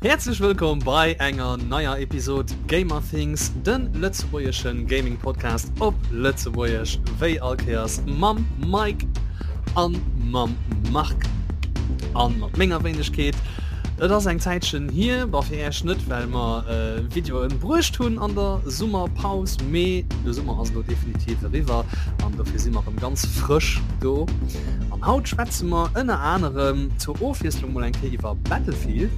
Häerzlech wëllkomm bei enger neier Episod Gamerthings, de lëtzebuergesche Gaming Podcast op Lëtzebuergesch, wéi all Kéiers mam Mike an mam Marc an mat menger Wéinegkeet. Et ass eng Zäitchen hier, bon fir Äech net, well mer Videoen bruecht hunn an der Summerpaus, mee de Summer ass elo definitiv eriwwer an dofir si mer erëm ganz frësch do. An haut schwätze mer ënner anerem zur Ofwiesslung mol eng Kéier iwwer Battlefield.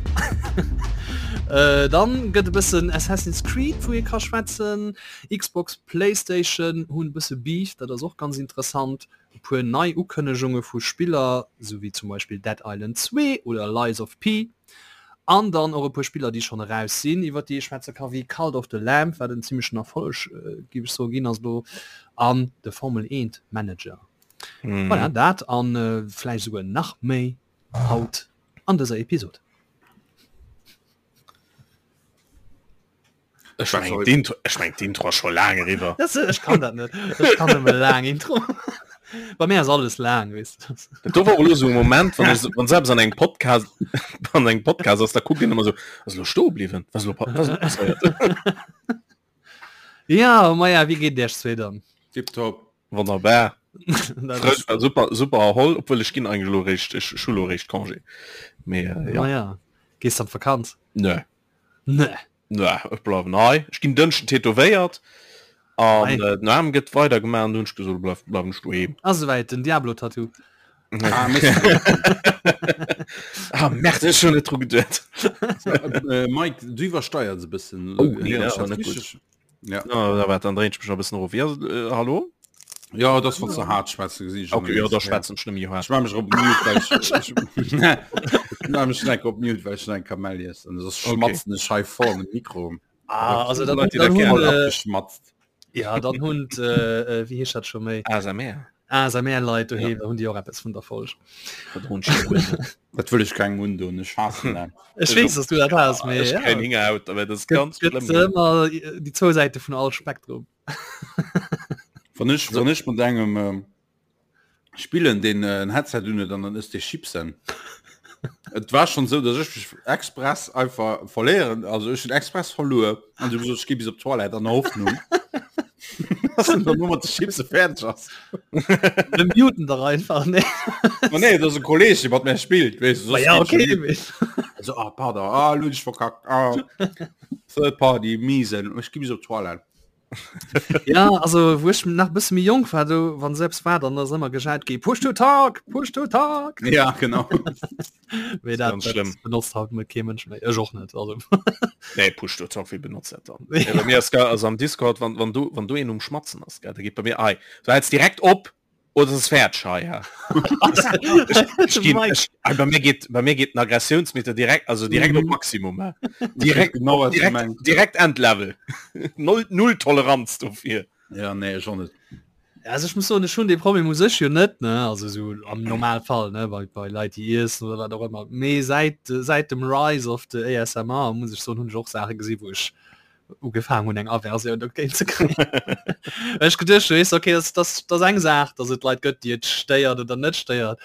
Dann gëtt e bëssen Assassin's Creed wou ee ka schwätzen, Xbox, Playstation hunn e bësse Beef, dat ass och ganz interessant. E puer nei Ukënnegunge vu Spiller, sou wéi zum Beispill Dead Island 2 oder Lies of P. An dann och e puer Spiller, déi schonn eraus sinn, iwwer déi ee schwätze ka wéi Cult of the Lamb, wat en zimmlechen Erfolleg, géif ech soen, ginn ass elo, an de Formel 1 Manager. Voilà, dat a vläicht esouguer nach méi haut an dëser Episod. Ech meng d'Intro, ech meng d'Intro ass scho laang eriwwer. Das, ech kann dat net. Ech kann nëmme laang Intro. Bei mir ass alles laang, weess de. Dat do war och elo esou e Moment, wann ech, wann selbst an engem Podcast, an engem Podcast ass, da kuckt een ëmmer esou, ass elo stoe bliwwen? Was elo, was elo passéiert? Ja, maja, wéi geet et iech zwee dann? Tiptop. Wonnerbar. Dat ass Frësch, super, super erholl, obwuel ech ginn eigentlech elo eréischt, ech hu elo eréischt Congé. Mee äh, ja. Maja, gees an d'Vakanz? Nö. Nö. Nö, ech bleiwen hei. Ech ginn Dënschden tätowéiert an Ei. äh, den Aarm gëtt weider gemaach an du hunn ech gesot, bleif, bleiwen ech doheem. Ass esouwäit, den Diablo-Tattoo. Ah, Mist. Ah, merde, ech hunn net dru geduet. Äh, Mike, du iwwersteiers e bëssen. Oh, nee, Héieren dat ech ass dat net gutt. richteg? Ja. Na, da wat, dann dréint ech mech nach e bëssen erof. Ja, äh, hallo? Ja, das wann ze hart schwätzen gesinn ech Okay, ja, da schwätzen ech net méi hart. Ech mach mech op Mute, well ech, ech, ech mach mech enk op Mute, well ech schon eng Kamell iess an soss Okay. schmatzen ech hei voll an den Mikro. Ah, also dann, Leute, die dann dat hunn, Voll äh, abgeschmatzt. ja, dann hunn d', äh, äh, wéi heescht dat scho méi? ASMR. ASMR-Leit doheem, da hunn déi och eppes vun der Folg. Dat hunn ech jo. Dat wëll ech kengem undoen, ech haassen dat. Ech weess, dass du dat has, mee Ech ja. kréien Hingerhaut, aber dat ass Gëtt, ganz gëtt schlëmm. ëmmer déi zwou Säite vun all Spektrum. Wann ech, wann ech mat engem ähm, spillen, deen äh, en Headset un huet an dann ësst dee Chipsen. Et war schon sou, dass ech mech express einfach verléieren, also ech hunn express verluer an du gesot, ech gi bis op d'Toilette an der Hoffnung, dass en dann nur mat de Chipse fäerdeg ass. Wir muten dach einfach, ne? Ma nee, dat ass e Kolleg, dee mat mär spillt, weess du, Ma soss ja, geet schon okay, net. mee. Also, ah, pardon, ah, lo hunn ech verkackt, ah. Third Party, miesen, ech gi bis op d'Toilette. Ja, also wou ech nach e bësse méi jonk war, do wann selbst war, dann ass ëmmer gejaut gi Push to talk, push to talk. Ja, genau. Mee dat, Ganz dat schlimm. benotzt haut net kee Mënsch méi. Ech och net. Also. Nee, Push to talk, wie benotzt dat dann? Ja, bei mir ass ge- also am Discord, wann, wann du, wann du een um Schmatzen ass, gell, da geet bei mir, ei, du hältst direkt op oder es ist fertig hei, ja. Ich geh, ich, ah, bei mir geht, bei mir geht den Aggressionsmeter direkt, also direkt op Mhm. Maximum, ja. Direkt, Genau, was du direkt, meinst. direkt Endlevel. Null, null Toleranz dofir. Ja, nee, ech och net. Ja, also ech muss soen, ech hunn dee Problem u sech jo net, ne, also sou am Normalfall, ne, bei, bei Leit déi iessen oder wat och ëmmer. Mee säit, säit dem Rise of the ASMR muss ech soen, hunn ech och Saache gesi wou ech ugefaangen hunn eng Aversioun dogéint ze kréien. Well ech geduecht hunn, weess de, okay, dat ass, dat ass eng Saach, datt et Leit gëtt, déi et stéiert oder net stéiert,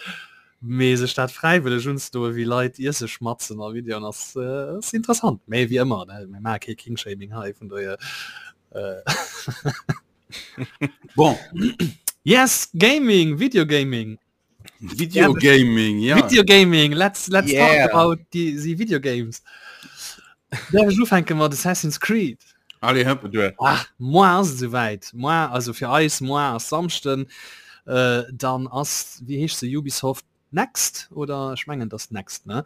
mee sech dat fräiwëlleg unzedoen, wéi Leit iesse schmatzen a Videoen, ass, ass interessant. Mee wéi ëmmer, ne, mir maache kee King-Shaming hei, vun dohier. Bon. Yes, Gaming, Videogaming. Videogaming, ja. Videogaming, let's, let's Yeah. talk about die, die Video Games. Darf ich ufänken mat Assassin's Creed? Allez, hopp. Du. Ah, moar ass et esouwäit. Moar, also fir eis, moar ass Samschden. Äh, dann ass, wéi heescht se, Ubisoft Next? Oder ech mengen, et ass Next, ne?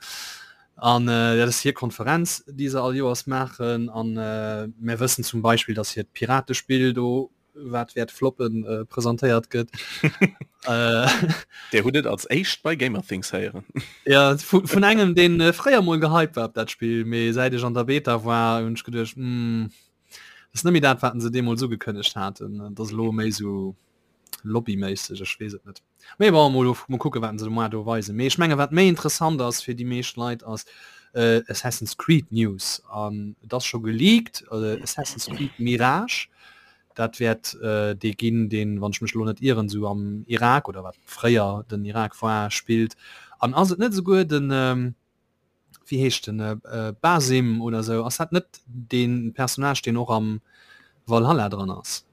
An äh, dat ass hir Konferenz, déi se all Joers maachen. An äh, mir wëssen zum Beispill, dass hiert Piratespill do wat wäert floppen äh, presentéiert gëtt. äh, Der hutt et als éischt bei Gamerthings héieren. ja, vun, vun engem den äh, fréier mol gehypt war op dat Spill, mee säit ech an der Beta war hunn ech geduecht mm, das net méi dat wat se deemools ugekënnegt haten, dat ass elo méi sou lobbyméisseg, ech weess et net. Mee bon, mol, mol kucke wat se de Mois do weisen. Mee ech menge wat méi interessant ass fir déi meescht Leit ass äh, Assassin's Creed News an et ass scho geleakt äh, Assassin's Creed Mirage. Dat wäert äh, dee ginn, deen, wann ech mech elo net ieren, sou am Irak oder wat fréier den Irak war, spillt. An ass et net esouguer den ähm, wéi heescht den äh, Basim oder sou, ass dat net deen Personnage deen och am Valhalla dran ass?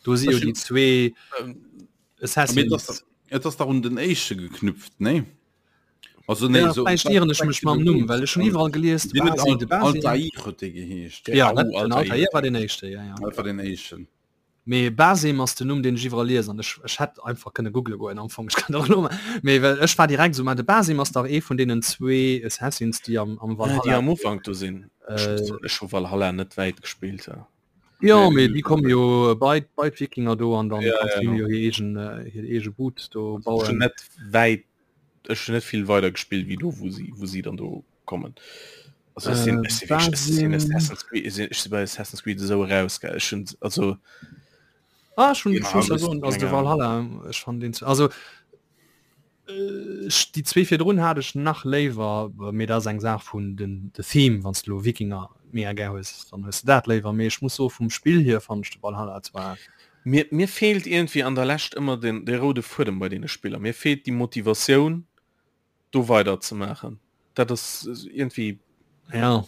Do si jo déi zwee Assassins. Et ass dach un den éischte geknüpft, nee? Also nee, ja, so, vielleicht irren ech mech mam Numm, well ech schon iwwerall gelies de Basim, de Basim. Altair huet dee geheescht. Ja, den Altair war den éischte, ja, ja. Dat war den éischten. Mee Basim ass den Numm deen ech iwwerall liesen an ech ech hätt einfach kënne googele goen am Fong, ech kann dat och elo maachen, mee well ech war direkt esou, ma de Basim ass dach ee vun deenen zwee Assassins déi am am Valhalla, déi am Ufank do sinn. Ech hu Valhalla net wäit gespillt. Jo mee déi komme jo bei bei d'Wikinger do an dann kanns du jo hir eegen hir eege Boot do bauen. Ech hunn net wäit ech hun net vill weider gespillt wéi do wou si wou si dann do kommen. Also ech sinn, ech sinn wierklech, ech sinn Assassin's Creed, ech sinn, ech sinn bei Assassin's Creed esou eraus gell, ech hunn also Ah, ech hunn, ech muss ja soen, also de Valhalla, ech fannen deen, also ech déi zwee virdrun hat ech nach léiwer, mee dat ass eng Saach vun den de Theme, wann s de elo Wikinger mega gär hues, dann hues de dat léiwer, mee ech muss soe vum Spill hier fannen ech de Valhalla zwar Mir, mir feelt iergendwéi an der Lescht ëmmer den, de roude Fuedem bei deene Spiller. Mir feelt déi Motivatioun, do weider ze maachen. Dat ass iergendwéi. Ja.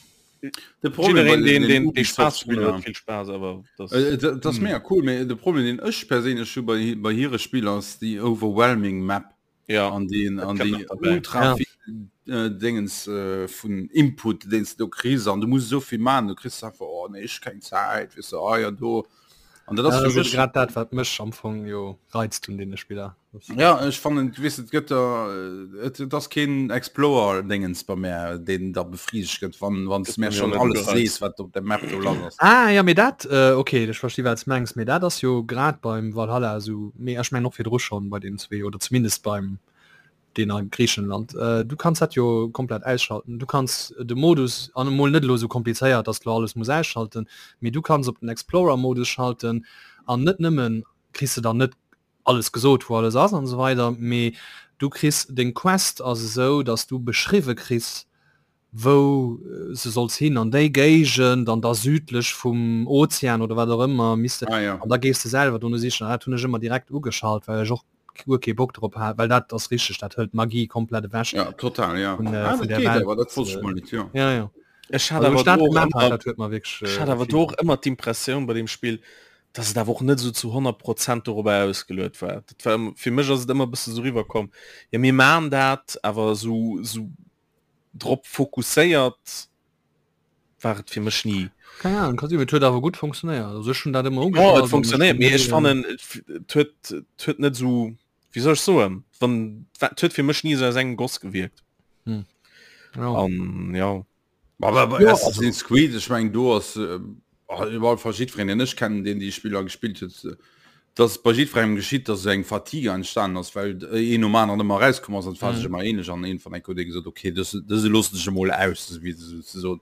De Problem bei Jiddereen, deen, den deen, dee Spaass drun Ubisoft-Spiller, huet, vill Spaass, awer das. Et ass mega cool, mee de Problem, deen ech perséinlech hu bei, bei hire Spiller, ass déi overwhelming Map. Ja, an den dat an kënnt déi nach derbäi. ultra Ja. vill äh, Dingens äh, vun Input deen s du do kriss an du muss esou vill man, du kriss einfach oh nee ech keng Zäit weess du ah ja do an dat Ja, ass dat fir ass ebe mech grad dat, wat mech am Fong jo reizt un deene Spiller. Das, ja ech fannen weess et gëtt der äh, et, et ass keen Explorer Dingens bei mär deen da befriedegt gëtt wann wann s Gëtt du mär bei mir och schon net alles gereizt. sees wat op der Map do lass ass. Ah ja, mee dat, äh, okay, ech versti wat s mengs, mee dat ass jo grad beim Valhalla esou, mee ech mengen och virdru schonn bei deenen zwee oder zumindest beim deen a Griichenland. Äh, du kanns dat jo komplett ausschalten. Du kanns de Modus, an emol net elo esou komplizéiert, dass de lo alles muss ausschalten, mee du kanns op den Explorer-Modus schalten an net nëmmen kriss de dann net alles gesot wou alles ass an esou weider, mee du kriss deng Quest ass esou, dass du beschriwwe kriss wou se solls hin an déi Géigend an da südlech vum Ozean oder wat och ëmmer misst Ah, ja. an da gees de selwer dono sichen. An dat hunn ech ëmmer direkt ugeschalt, well ech och guer kee Bock drop hat, well dat ass richteg, dat hëlt d'Magie komplett ewech Ja, total, ja. vun, äh, Ah, vun dat der geet Welt. awer, dat wosst ech mol net, jo. Ja, ja. Ech hat Also, awer ech dat do och gemaach hat, ëmmer, dat huet mer wierklech ech äh, hat awer vill do och ëmmer d'Impressioun bei deem Spill, dass et awer och net esou zu 100 Prozent dorobber ausgeluet war. Dat war ëmmer, fir mech ass et ëmmer e bësse sou riwwerkomm, jo mir maan dat, awer esou, esou drop fokusséiert war et fir mech ni. Keng Ahnung, kann sinn, mee et huet awer gutt funktionéiert. Also ech hunn dat ëmmer Jo, ugeschalt et an ech funktionéiert, hunn mee ech ni, fannen et huet, et huet net esou, wéi soll ech soen, wann, et huet fir mech ni esou aus engem Goss gewierkt. Hm. Ja. An ja. Aber bei Ja, Assassin's Creed, ech mengen do ass äh, iwwerall fast jiddwereen, deen ech kennen, deen déi Spiller gespillt huet, äh, dass bei jiddwerengem geschitt, dass eng Fatigue entstanden ass, well een nom aneren ëmmer erauskomm ass an et war sech Mhm. ëmmer ähnlech an iergendwann eng Kéier huet ee gesot, okay, dës, dëse loossen ech emol aus, esou wéi se ze soen.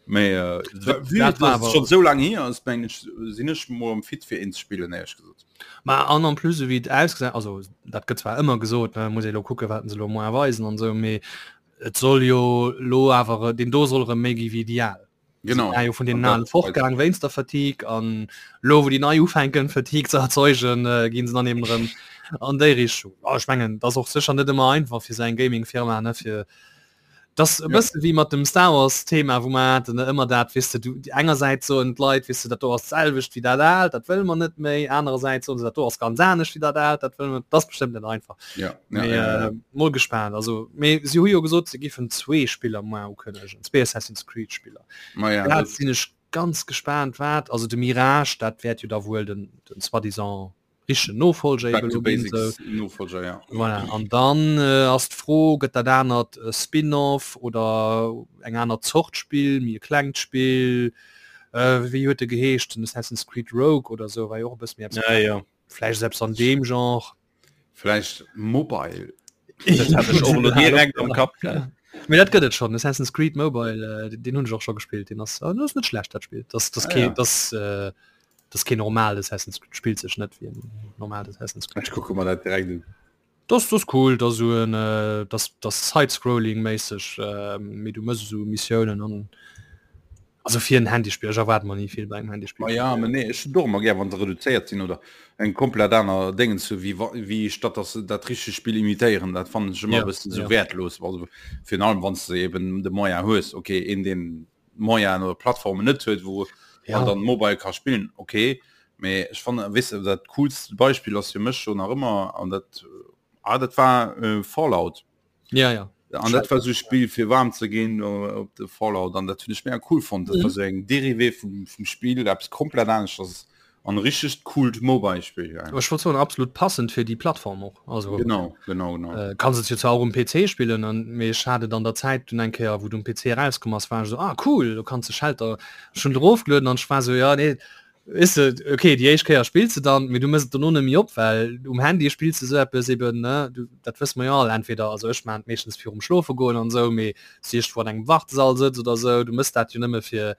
Mee äh, Dat vue war dass et awer schonn esou laang hier ass, mengen ech, sinn ech mol am fit fir een ze spillen, éierlech gesot. Ma an en plus esou wéi et ausgesäit, also dat gëtt zwar ëmmer gesot, ne, muss ee lo kucke wat se lo moar weisen an esou, mee et soll jo lo awer, deen do soll erëm méi gi wéi déi al. Genau. Ja, jo vun den An alen dat fortgaang wéinst der Fatigue an lo wou déi nei ufänken Fatigue ze erzeugen, äh, ginn se dann eben erëm an déi Richtung. Oh, ech mengen, dat ass och sécher net ëmmer einfach fir sou eng Gaming-Firma, ne, fir das e Ja. bësse wéi mat dem Star Wars Thema, wou mer haten, ne, ëmmer dat, weess de, du engersäits soen d'Leit, weess de, dat do ass d'selwecht wéi dat aalt, dat wëlle mer net méi, anerersäits soen se, dat do ass ganz anescht wéi dat aalt, dat wëlle mer, dat ass bestëmmt net einfach. Ja, ja, Mee, ja, ja. äh, mol gespaant. Also, mee si hu jo gesot, se giffen zwee Spiller moar ukënnegen, zwee Assassin's Creed Spiller. Ma ja, Dat dat, sinn ech ganz gespaant, wat, also de Mirage, dat wäert jo da wuel den, den soi-disant richtegen Nofolger Back eben to elo ginn, sou. Basics Nofolger, ja. Voilà, an dann äh, ass d'Fro, gëtt dat anert e Spin-off oder eng aner Zort Spill, méi e klengt Spill, äh, wéi huet e geheescht, den Assassin's Creed Rogue oder sou, war jo och e bësse méi eppes Ja, ja. Vläicht ass eppes an deem Genre. Vläicht Mobile. Dat hat ech och elo direkt am Kapp gehat. Mee dat gëtt et schonn, Assassin's Creed Mobile, äh, deen hunn ech och scho gespillt. Deen ass, äh, ass net schlecht dat Spill. Das, das Ah, kee, ja. das, äh, das kee normalt Assassin's Creed, spillt sech net wéi en normalt Assassin's Creed. Ech kucke mer dat direkt un. Das, das cool, das esou en, äh, das, das Side-Scrolling-méisseg, äh, mee du mëss esou Missiounen an. Also fir en Handyspill, ech erwaart mer ni vill bei engem Handyspill. Ma ja, mä nee, ech hunn och ëmmer gär, wann se reduzéiert sinn oder eng komplett aner Déngens hu wéi wa wéi statt dass se dat richtegt Spill imitéieren. Dat fannen ech ëmmer e Ja, bëssen esou ja. wäertlos, also virun allem wann s de eben de Moyen hues. Okay, een deen Moyenen oder Plattformen net huet, wou Ja. man dann Mobile ka spillen, okay, mä ech fannen, weess de, dat coolst Beispill ass fir mech scho nach ëmmer an dat ah dat war Fallout. Ja, ja. An dat war so Spiel fir warm ze ginn op de Fallout an dat hunn ech mega cool fonnt. Dat war mhm. so eng Derivé vum, vum Spiel, eppes komplett aneschters an richtegt coolt Mobile-Spiel. Ja. Ech wollt soen absolut passend fir déi Plattform och. Also genau, genau, genau. Äh, kannst et jo zwar och um PC spillen an mee ech hat et an der Zäit dunn eng Kéier wou du um PC erauskomm ass war ech so ah cool, du kannst de Shelter schon erofgelueden an ech war so ja nee Weess de, okay, déi éischt Kéier spills de dann, mee du mëss et dono net méi op, well um Handy spills de sou eppes eben, ne, du, dat wësse mer jo all, entweder, also ech maachen et meeschtens virum Schlofe goen an esou, mee s du iergendwou an engem Wartesall sëtz oder esou, du mëss dat jo nëmme fir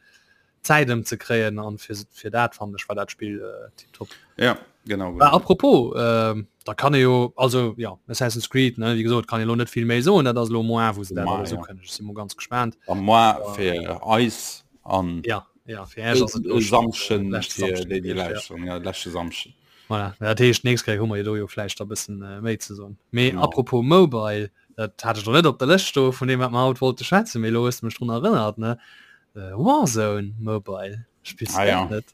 d'Zäit ëmzekréien an fir, fir dat fannen ech war dat Spill tiptop. Ja, genau, Bah, genau. apropos, da kann ee jo, also jo, Assassin's Creed, ne, wéi gesot, kann ee lo net vill méi soen, dat ass elo mois, wou se dat Mois, alles ja. ukënnegen, ech si mol ganz gespaant. A mois fir eis an. Ja. Ja, fir Äech ass et e Samschden leschte fir Samschden déi déi gewiescht, ja. lauschteren, ja leschte Samschden. Voilà, dat heescht nächst Kéier hu mer jo do jo vläicht da bëssen méi ze soen. Mee Genau. apropos Mobile, dat hat ech lo net op der Lëscht stoe vun deem wat mer haut wollte schwätzen, mee elo hues de mech drun erënnert, ne? Warzone Mobile, spills Ah de ja. dat net?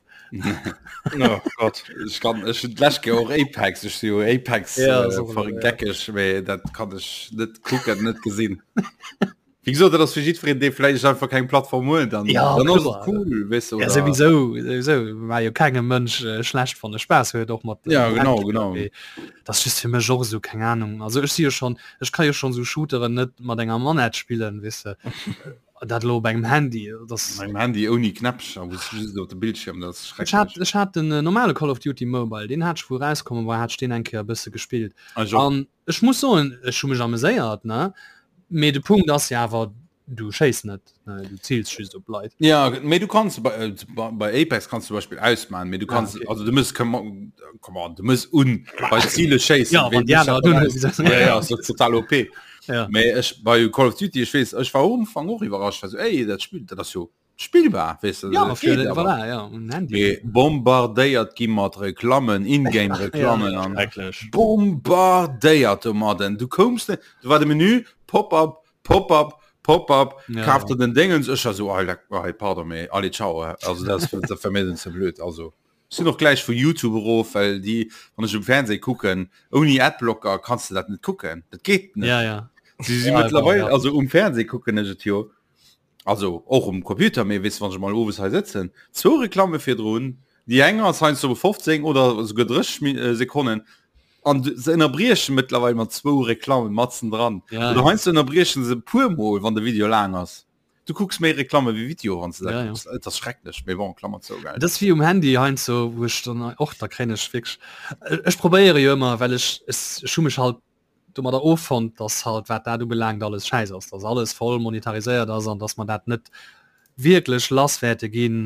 Oh Gott. Ech kann ech hunn d'lescht Kéier och Apex, ech si jo Apex Ja, äh, so, ja. vergeckeg, mee dat kann ech net kucken, net gesinn. Wéi gesot, dat ass fir jiddwereen, dee vläicht einfach keng Plattform huet, dann, Ja, dann ass kloer. et cool, weess du, Ja, oder? sowieso, sowieso. War jo kengem Mënsch äh, schlecht wann e Spaass huet och mat Ja, äh, genau, Handspiller, genau. mee Dat ass just fir mech och esou, keng Ahnung. Also ech si jo schon, ech ka jo schon sou Shooteren net mat enger Manette spillen, weess de. Dat elo op engem Handy, das Mat engem Handy ouni Knäppcher, wou s du just op de Bildschirm, dat ass Ech hat, schrecklech. ech hat den äh, normale Call of Duty Mobile, deen hat ech wou erauskommen war, hat ech deen eng Kéier e bësse gespillt. Ech och. An Ech muss soen, ech hu mech ameséiert, ne? Mee de Punkt ass jo awer, du schéiss net, ne? Du ziils just op Leit. Ja, mee du kanns bei, äh, bei Apex kannst du zum Beispiel ausmachen, mee du Ah, kannst, okay. also du muss, come on, come on, du muss un bei Ziele schéissen. Ja, wann déi aner dunn Ja, ja, ass total OP. Ja. Mee ech bei Call of Duty, ech weess, ech war am Ufank och iwwerrascht, war so, ey, dat Spill, dat ass jo spillbar weess de, Ja, dat fir, geet awer. voilà, ja, um Handy. Mee bombardéiert gi mat Reklammen, In-Game-Reklammen an Schrecklech. bombardéiert domadden. Du koums net, du war de Menü, Pop-up, Pop-up, Pop-up, Ja, kaf ja. der den Dingens, ech war so, ah, leck, ah, pardon, mee allez, ciao, also dat ass dat war mir dann ze blöd, also ech sinn och gläich vu YouTube erof, well déi, wann ech um Fernseh kucken, ouni Adblocker kanns de dat net kucken, dat geet net. Ja, ja. Si si Ja, mëttlerweil, ja. also um Fernseh kucken ech et jo, Also och um Computer, mee weess wann ech mol owes hei sëtzen, zwou Reklamme virdrun, déi eng ass heiansdo 15 oder esouguer 30 Mi- Sekonnen an se ënnerbrieche mëttlerweil mat zwou Reklamme matzen dran. Ja, Oder ja. heiansdo ënnerbriechen se e puer mol, wann de Video laang ass. Du kucks méi Reklamme wéi Video, wann s de dat Ja, ja. kucks. Et ass schrecklech, mee bon, Klammer zou, gell. Dat ass wéi um Handy heiansdo, wou ech dann och, da kréien ech wierklech, ech probéiere jo ëmmer, well ech, ech hu mech halt domadder offonnt, dass halt wat dat ubelaangt alles schäiss ass, dass alles voll monetariséiert ass an dass mer dat net wierklech lass wäerte ginn,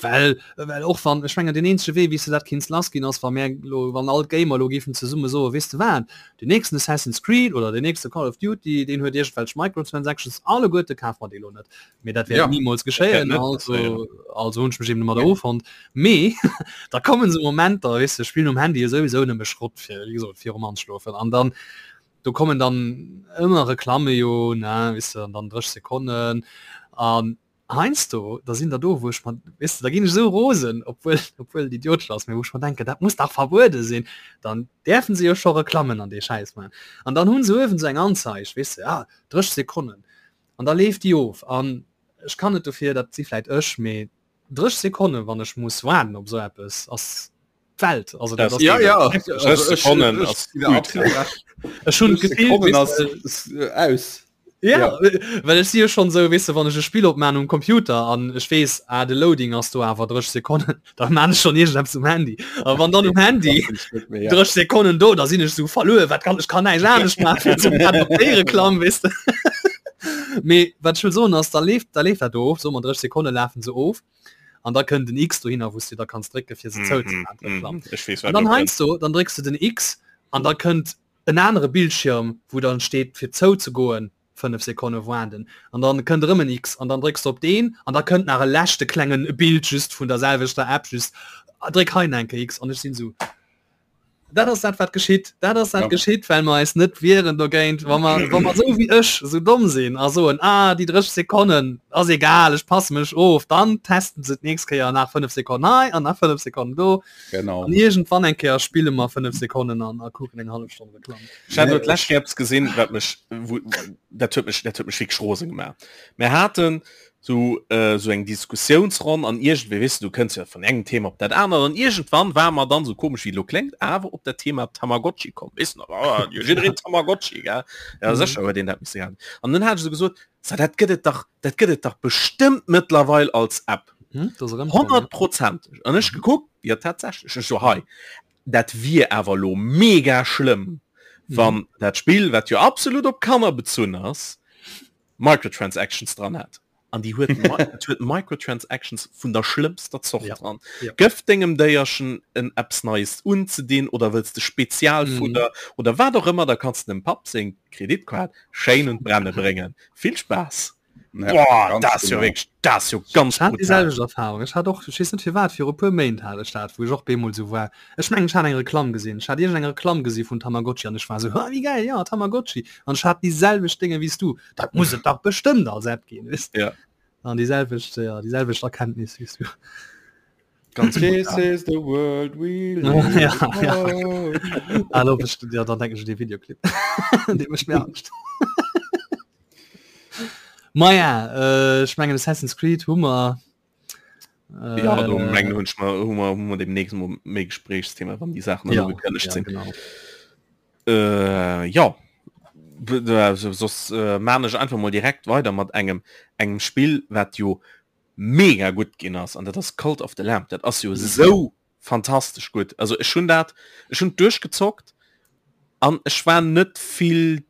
well well och wann, ech mengen deen eenzege Wee wéi s de dat kinns lass ginn ass wa mär elo, wann all d'Gamer elo géifen zesumme soen, weess de wat, deen nächsten Assassin's Creed oder deen nächste Call of Duty, deen huet iergendwelch Microtransactions, alleguerte kafe mer déi elo net. Mee dat wäert Ja. nimools geschéien, net also passéieren. also hunn ech mech eben domadder offonnt. Mee da kommen esou Momenter, weess de, ech spillen um Handy jo souwisou nëmme Schrott fir, wéi gesot, virum Anschlofen an dann do kommen dann ëmmer Reklamme jo, ne, weess de, an dann 30 Sekonnen an heiansdo da sinn der do, wou ech mer, weess de, da ginn ech esou rosen, obwuel obwuel et idiotesch ass, mee wou ech mer denken, dat muss dach verbuede sinn, dann däerfen se jo scho Reklammen an dee Schäiss maachen an dann hu se uewen esou eng Anzeig, weess de, ah 30 Sekonnen an da leeft déi of an ech kann net dofir, dat si vläit ech, mee 30 Sekonnen wann ech muss waarden op esou eppes ass d'Welt also dat ass Ja, ja. 30 Sekonnen ass ech hunn d'Gefill Sekonnen weess ass de, aus. ja, Ja. well ech si jo schonn esou weess de wann ech e Spill opmaan um Computer an ech weess ah de Loading ass do awer 30 Sekonnen da maan ech schonn iergendeppes um Handy a wann dann um Handy 30 Sekonnen do da sinn ech esou verluer wat kann ech kann näischt anescht maachen fir zum grad op déi Reklamm weess de mee wat ech wëll soen ass da leeft da leeft dat do of soe mer 30 Sekonne lafen se of an da kënnt den X dohinner wou s du da kanns drécke fir se zou ze Mhm, maachen d'Reklamm mhm. Ech weess an wat dann elo kënnt. heiansdo dann drécks du den X an da kënnt en anere Bildschirm wou dann steet fir zou ze goen. 5 Sekonne waarden an dann kënnt erëm en X an dann drécks de op deen an da kënnt nach e leschte klengen Bild just vun der selwechter App just dréck hei nach eng Kéier X an ech sinn esou dat ass dat wat geschitt dat ass dat ja. geschitt well mer eis net wieren dogéint wa mer wa mer sou wéi ech sou domm sinn a soen ah déi 30 Sekonnen ass egal ech passe mech of dann testen se d'nächst Kéier nach 5 Sekonnen hei an nach 5 Sekonnen do genau an iergendwann eng Kéier spille mer 5 Sekonnen an a kucken eng hallef Stonn Reklamm. Ech hat elo d'lescht Kéier eppes gesinn wat mech wou dat huet mech dat huet mech wierklech rose gemaach. Mir haten sou sou eng Diskussiounsronn an iergendwéi, weess de, du kënns jo vun engem Thema op dat anert an iergendwann ware mer dann, sou komesch wéi et elo kléngt, awer op dat Thema Tamagotchi komm, weess de nach, ah jo jiddereen Tamagotchi, gell? Ja sécher huet een dat misse gehat. An dunn hat ech sou gesot, So dat gëtt et dach, dat gëtt et dach bestëmmt mëttlerweil als App. Honnertprozenteg. An ech gekuckt, jo tatsächlech, ech so hei, dat wier awer elo mega schlëmm, wann dat Spill, wat jo absolut op Kanner bezunn ass, Microtransactions dran hätt. An déi huet et huet Microtransactions vun der schlëmmster Zort ja. dran. Ja. Gëff dengem Déierchen en eppes Neies unzedinn oder wëlls de Spezialfudder mhm. oder wat och ëmmer, da kanns de dem Papp seng Kreditkaart schéin un d'Brenne bréngen. Vill Spaass! Ja, Boah, ganz dat ass jo genau. wierklech, dat ass jo ganz Ech hat déi brutal. selwecht Erfahrung. Ech hat och, ech weess net firwat, viru puer Méint hat ech dat, wou ech och bemol sou war. Ech mengen, ech hat eng Reklamm gesinn. Ech hat iergendeng Reklamm gesi vun Tamagotchi an ech war sou, ha, wéi gäil, ja, Tamagotchi. An ech hat déi selwecht Dénge wéi s du. Dat muss et dach bestëmmt als App ginn, weess Ja. An déi selwecht, ja, déi selwecht Erkenntnis wéi s du. Ganz This brutal. is the world we live Ja, ja. in. Ah, lo bist du, ja, dann denke ich un dee Videoclip. Dee mécht mir Angscht. Maja, ech mengen Assassin's Creed hu mer. Äh, ja, do mengen hunn ech mer hu mer hu mer demnächst mol méi Gesprächsthema, wann déi Saachen dann ja, ugekënnegt ja, sinn. genau. Äh, ja. B- äh, so- Soss äh, maan ech einfach mol direkt weider mat engem engem Spill, wat jo mega gutt ginn ass an dat ass Cult of the Lamb. Dat ass jo sou fantastesch gutt. Also ech hunn dat ech hunn duerchgezockt an ech war net vill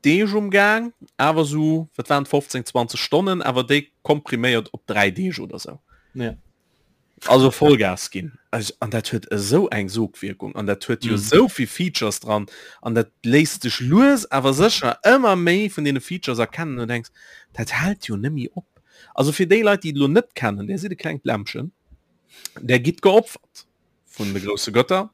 Deeg um Gaang, awer sou, wat waren et, 15, 20 Stonnen, awer déi kompriméiert op 3 Deeg oder sou. Ja. Also Vollgas ginn. Also, an dat huet esou eng Sogwierkung an dat huet jo Mhm. esou vill Features dran an dat léisst sech lues awer sécher ëmmer méi vun deene Features erkennen an du denks, dat hält jo nëmmi op. Also fir déi Leit, déi et elo net kennen, där sidd e klengt Lämmchen, där gitt geopfert vun de grousse Götter.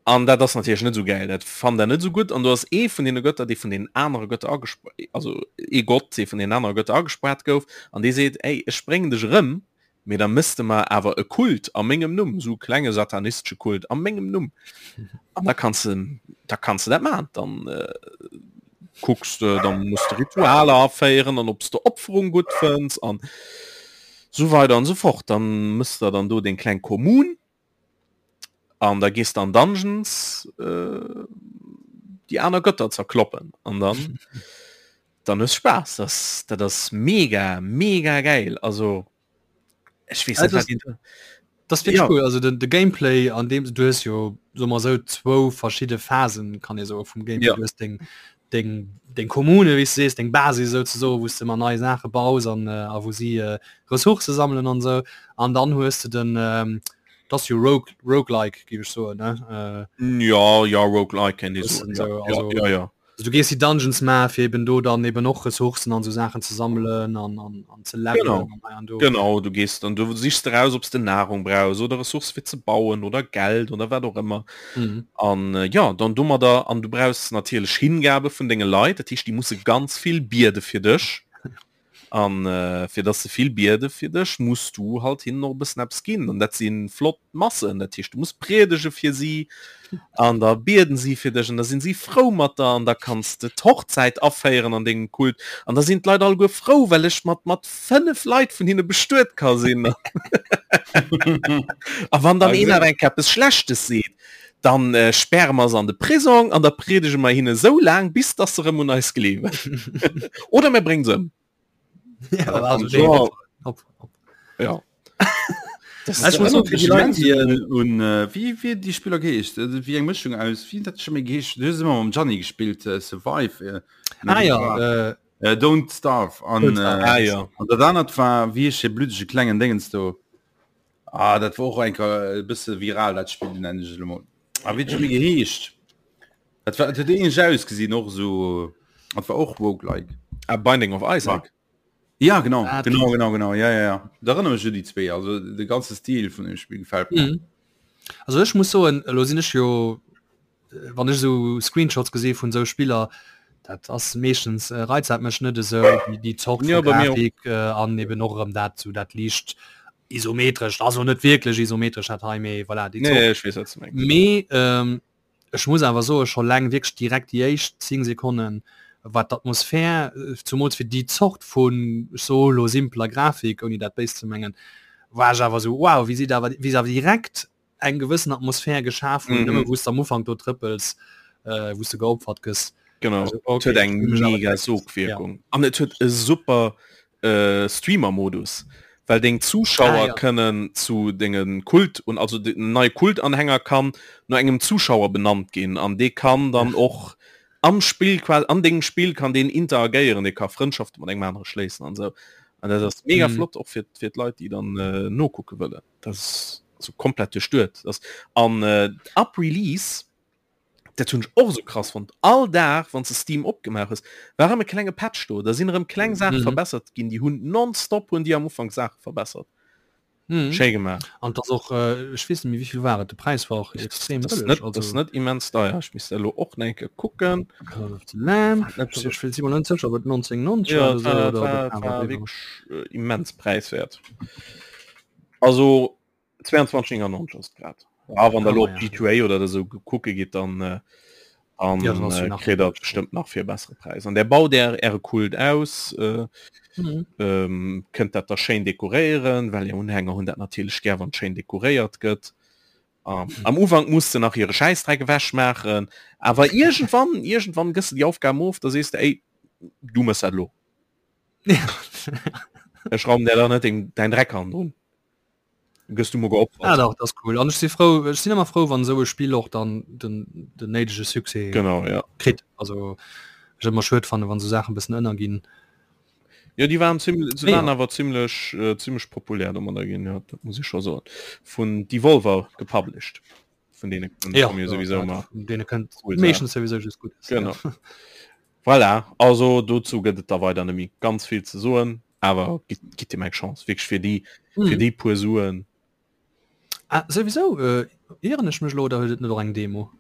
An dat ass natierlech net esou gäil, dat fannt der net esou gutt. An do ass ee vun deene Götter, dee vun deenen anere Götter agesp-, also ee Gott, dee vun deenen anere Götter agespaart gouf, an dee seet, Ey, ech bréngen dech erëm, mee da méchs de mer awer e Kult a mengem Numm, esou e klenge satanistesche Kult a mengem Numm. An da kanns de, da kanns de dat maachen. Dann kucks de, da muss de Ritualer aféieren an ob s de Opferung gutt fënns an esou weider an esou fort. Dann méchs de dann do deng kleng Kommun. An da gees de an Dungeons äh, déi aner Götter zerkloppen an dann dann hues Spaass. Das, dat ass mega mega geil. Also ech weess net, Also, wat een Das wirklich Ja. cool. Also den, de Gameplay an dem du hues jo so mal so zwou verschidde Phasen kann ee soe vum Gameplay. Ja. Du hues deng deng deng Kommune wéi s du sees, deng Basis souzesoe wou s de ëmmer nei Saache baus an äh, a wou si äh, Ressourcë sammelen an sou. An dann hues de den ähm, das jo Rogue Roguelike géif ech soen ne äh, Ja ja Roguelike kennt ee Bëssen soen, sou, ja, also- ja, ja, ja. also du gees déi Dungeons maache fir eben do dann eben och Ressourcen an sou Saachen ze sammelen an an an ze levelen Genau. an hei an do. Genau, du gees dann du sichs de raus, ob s de Nahrung brauchs oder Ressource fir ze bauen oder Geld oder wat och ëmmer. Mhm. An äh, ja, dann domadder an du brauchs natierlech Hingabe vun denge Leit, dat heescht déi musse ganz vill biede fir dech. An äh, fir dass se vill biede fir dech, muss du halt hinnen och e bëssen eppes ginn. An dat si flott Massen, dat heescht du muss priedege fir si an da bieden si fir dech an da sinn si frou mat der an da kanns de d'Hochzäit aféieren an dengem Kult an da sinn d'Leit alleguer frou, well ech mat mat 5 Leit vun hinne bestuet ka sinn. A wann dann een awer eng Kéier eppes Schlechtes seet, dann äh, sperre mer se an de Prisong an da priedege mer hinne sou laang, bis dass se rëm un eis gleewen. Oder mir bréngen se ëm. Ja, also, Ja. Hopp, hopp. Ja. Das Ich muss ist auch für die Leute, die, äh, un äh, wie wie die Spieler geheescht äh, wie eng Mëschung aus wie dat schon méi geheescht du hues ëmmer mam Gianni gespillt äh, Survive äh, Ah ja, äh, äh, Don't Starve an Don't Starve. äh, ah, ja. an dat anert war wie heescht dee blüddege klengen Dingens do ah dat war och eng Kéier e bësse viral dat Spill nennen ech et elo mol ah wéi huet méi geheescht dat war dat huet ähnlech ausgesinn och esou. Dat war och Roguelike. Ah, Binding of Isaac. Ja genau ah, genau genau genau ja ja ja da erinnere mich die zwee also de ganze Stil vun dem Spiel gefällt mir. Mhm. Also ech muss soen elo sinn ech jo äh, wann ech so Screenshots gesinn vun sou Spiller dat ass meeschtens äh, reizt dat mech net esou déi déi Zort Ja, vu bei mir och. Grafik äh, an eben och erëm dat sou dat liicht isometrescht also net wierklech isometresch dat hei mee voilà déi Nee, Zort. ech weess wat du mengs. Mee ähm, Ech muss awer soen, scho leng wierklech direkt déi éischt 10 Sekonnen war d'Atmosphär, zumools fir déi Zort vun, ech soe lo simpeler Grafik, ouni dat béis ze mengen, war ech awer esou wow, wéi si da awer, wéi se awer direkt eng gewëssen Atmosphär geschaf hunn, nëmme wou s de am Ufank do trëppels, wou s de geopfert gëss. Genau, Also et okay, huet eng hu mech awer mega direkt, ja. Sogwierkung an et huet e super Streamer-Modus, well deng Ah, Zuschauer ja. kënnen zu denge Kult un also den neie Kultanhänger kann no engem Zuschauer benannt ginn an dee kann dann och am Spill quasi an dengem Spill kann deen interagéieren, dee ka Frëndschafte mat engem anere schléissen an esou an dat ass mega Mhm. flott och fir fir d'Leit déi dann nokucke wëllen. Dat ass also komplett duerchduet ass an ab Release Dat hunn ech och esou krass fonnt. All Dag wann s de Steam opgemaach hues, war erëm e klenge Patch do. Da sinn erëm kleng Saache Mhm. verbessert ginn. Déi hunn nonstop hunn déi am Ufank Saache verbessert. Mhm. Schéi gemaach. An 't ass och, äh, ech weess net méi wéivill war et, de Präis war och extrem Das ass bëlleg, net, das also net immens deier. Ech misst elo och nach eng Kéier kucken. Call of the Lamb, Net ech ech si mer net sécher, ob et 1990 Ja, war et oder war, sou et oder ob war, et et awer war driwwer. wierklech äh, immens präiswäert. Also 22,99 ass grad. Ja, wann der Ah, lo ja. G2A oder esou kucke gitt, dann äh, dann, Ja, dann ass jo äh, nach kritt der bestëmmt nach fir e bessere Präis. An der baut är äre Kult aus, äh, Mhm. ähm, kënnt dat da schéin dekoréieren, well är Unhänger hunn dat natierlech gär, wann schéin dekoréiert gëtt. Ähm, am Ufank muss de nach hire Schäissdreck ewech maachen, awer iergendwann, iergendwann gëss de déi Aufgaben of, da sees de, ey, du mëss dat lo. Ech raumen der da net deng, däin Dreck hannendrun. Gëss du mo geopfert. Ah, dach, dat ass cool. An ech si frou, ech sinn ëmmer frou, wann esou e Spill och dann den, den néidege Succès Genau, ja. kritt. Also ech ëmmer schued fannen, wann esou Saachen e bëssen ënnerginn. Ja, déi waren ziemlich, se Mee waren jo. awer ziemlech, äh, ziemlech populär domadder ginn, ja, dat muss ich scho soen. Vun Devolver gepublished. Vun deene Ja, komme jo ja, souwisou dat, ëmmer vun deene kënnt cool Saachen. meeschtens souwisou just Guddes. Genau. Ja. Voilà, also dozou gëtt et da weider net méi ganz vill ze soen, awer gitt, gitt deem eng Chance, wierklech fir déi, fir Mhm. déi puer Suen. Ah, souwisou, äh, ieren ech mech elo oder huet et net och eng Demo?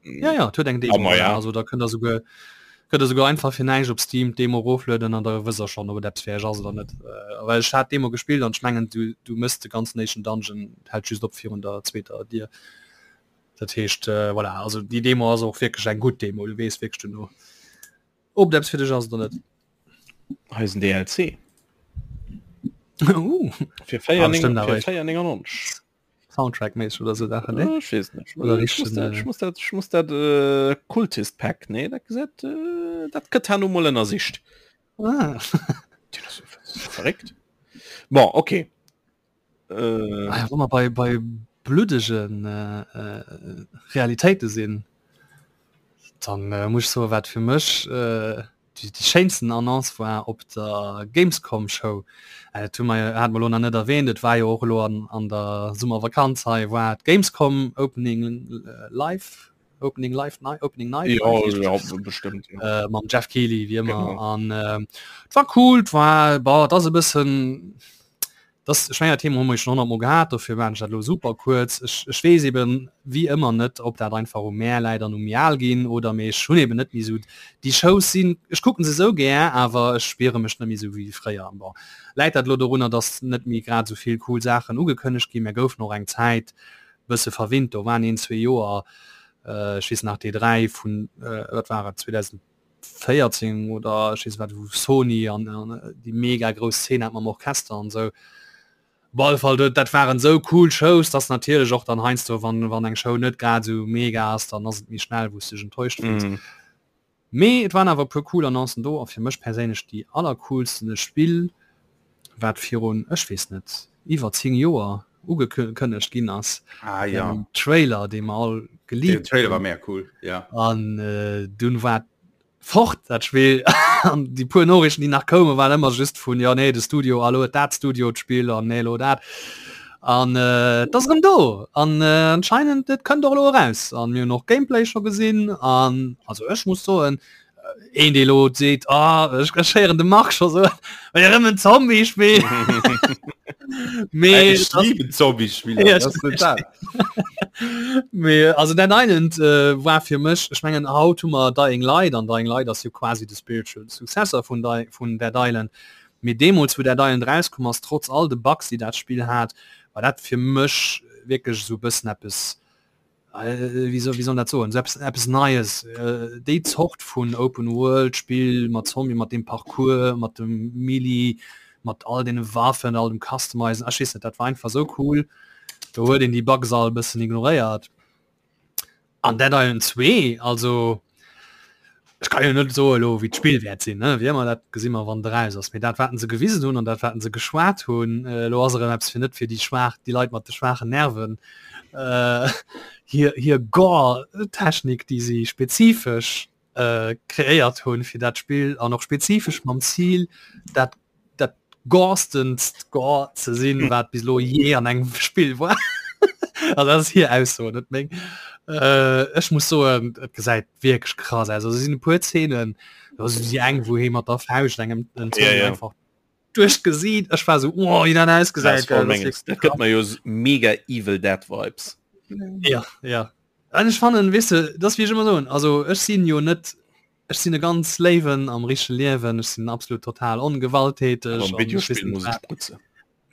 Ja, ja, et huet eng Ah, Demo, ma voilà. ja. Also da kënnt der souguer, kënnt der souguer einfach fir näischt op Steam d'Demo eroflueden an da wësst der schonn, ob et eppes fir iech ass oder net. Äh, well ech hat d'Demo gespillt an ech mengen, du, du mëss de ganzen éischten Dungeon, hält just op virun der zweeter Dier. Dat heescht, äh, voilà, also déi Demo ass och wierklech eng gutt Demo, du weess wierklech duerno, ob et eppes fir dech ass oder net. Hei ass en DLC. Uh. Fir Ah, bestimmt awer 4,99. echt Soundtrack-méisseg oder sou Saachen, ne? Ech weess net. Oder Ech muss richtegen, dat, äh, ech muss dat, ech muss dat äh, Kultist Pack, nee, dat gesäit, äh, dat gëtt herno mol ënnersicht. Ah. Dat ass verréckt. Bon, okay. Äh, Ah ja, wa mer bei, bei bluddegen äh, äh, Realitéite sinn, dann äh, muss ich soen, wat fir mech äh, déi, déi schéinsten Annonce war op der Gamescom Show. Äh, dat hu mer, hat mer lo nach net erwähnt, et war jo och elo an, an der Summervakanz hei, war d'Gamescom Opening äh, Live, Opening Live Night, Opening Night, ja, Live, ja, bestimmt. Ja. äh, mam Jeff Keighley wie ëmmer Genau. an äh, et war cool, et war boah, dat ass e bëssen das ech mengen dat Thema hu mer jo schon 100 mol gehat, dofir maachen ech dat elo super kuerz. Ech, ech weess eben wéi ëmmer net, ob dat einfach u mär läit an u méi al ginn oder mee ech hunn eben net méi esou déi Shows sinn, ech kucken se esou gär, awer ech spiere mech net méi esou wéi fréier. Bon, läit dat elo dorunner, dass net méi grad esou vill cool Saachen ugekënnegt ginn? Mär goufen och eng Zäit bësse verwinnt, do waren een, zwee Joer, ech weess nach d'E3 vun, wat war et, 2014 oder ech weess wat, wou Sony an déi mega grouss Szene hat mam Orchester an esou. Op alle Fall, dat waren esou cool Shows, dass natierlech och dann heiansdo, wann, wann eng Show net grad esou mega ass, dann ass et méi schnell, wou s de dech enttäuscht fills. Mm. Mee et waren awer e puer cool Annoncen do a fir mech perséinlech déi allercoolsten, e Spill wat virun, ech weess net, iwwer 10 Joer ugekënnegt ginn ass, Ah ja. den Trailer dee mer all Den geliebt Trailer war hunn mega cool, ja. an dunn war fort dat Spill an déi puer Noriichten déi nach koumen waren ëmmer just vun jo nee de Studio a lo huet dat Studio d'Spill an nee lo dat an et ass erëm do an anscheinend et kënnt och elo eraus an mir hunn och Gameplay scho gesinn an also ech muss soen. Een dee lo seet ah, ech ech héieren de Marc scho soen, well erëm en Zombie-Spill. Mee Ech das- lieben Zombie-Spiller, Ja, das ist net dat. Mee also Dead Island äh, war fir mech, ech mengen haut hu mer Dying Light an Dying Light ass jo quasi de spiritual Successor vun, Di vun Dead Island. Mee deemools wou Dead Island rauskomm ass, trotz all de Bugs déi dat Spill hat, war dat fir mech wierklech esou e bëssen eppes wéi soll, wéi soll dat soen, eppes, eppes Neies, déi Zort vun Open World Spill mat Zombie, mat deem Parcours, mat dem Melee, mat all deene Waffen, all dem Customizen, ech weess net, dat war einfach sou cool, do huet een déi Bugs all e bëssen ignoréiert. An Dead Island 2, also Ech kann jo net soe lo wéi d'Spill wäert sinn, ne? Wéi ëmmer, dat gesi mer wann et eraus ass. Mee dat wat se gewisen hunn an dat wat se geschwat hunn, elo ass erëm eppes fir net fir déi schwaach, déi Leit mat de schwaachen Nerven, hir hir Gore-Technik, déi si spezifesch kreéiert hunn fir dat Spill an och spezifesch mam Zil dat dat gorstenst Gore ze sinn, wat bis elo jee an engem Spill war. Also dat ass hir Ausso, net meng. Äh, ech muss soen, et gesäit wierklech krass aus. Also sinn e puer Zeenen, do ass déi eng, wou hee mat der Fauscht engem den Ja, Zombie ja. einfach duerch d'Gesiit. Ech war sou, oh, wéi dat Das ausgesäit, voll gell, dat ass menges. wierklech Dat gëtt krass. mer jo s- mega Evil Dead Vibes. Ja, ja. An ech fannen, weess de, dat ass wéi ech ëmmer soen, also ech sinn jo net Ech sinn e ganz léiwen am richtege Liewen, ech sinn absolut total ongewalttäteg. Awer am Videospill muss ech sprutzen.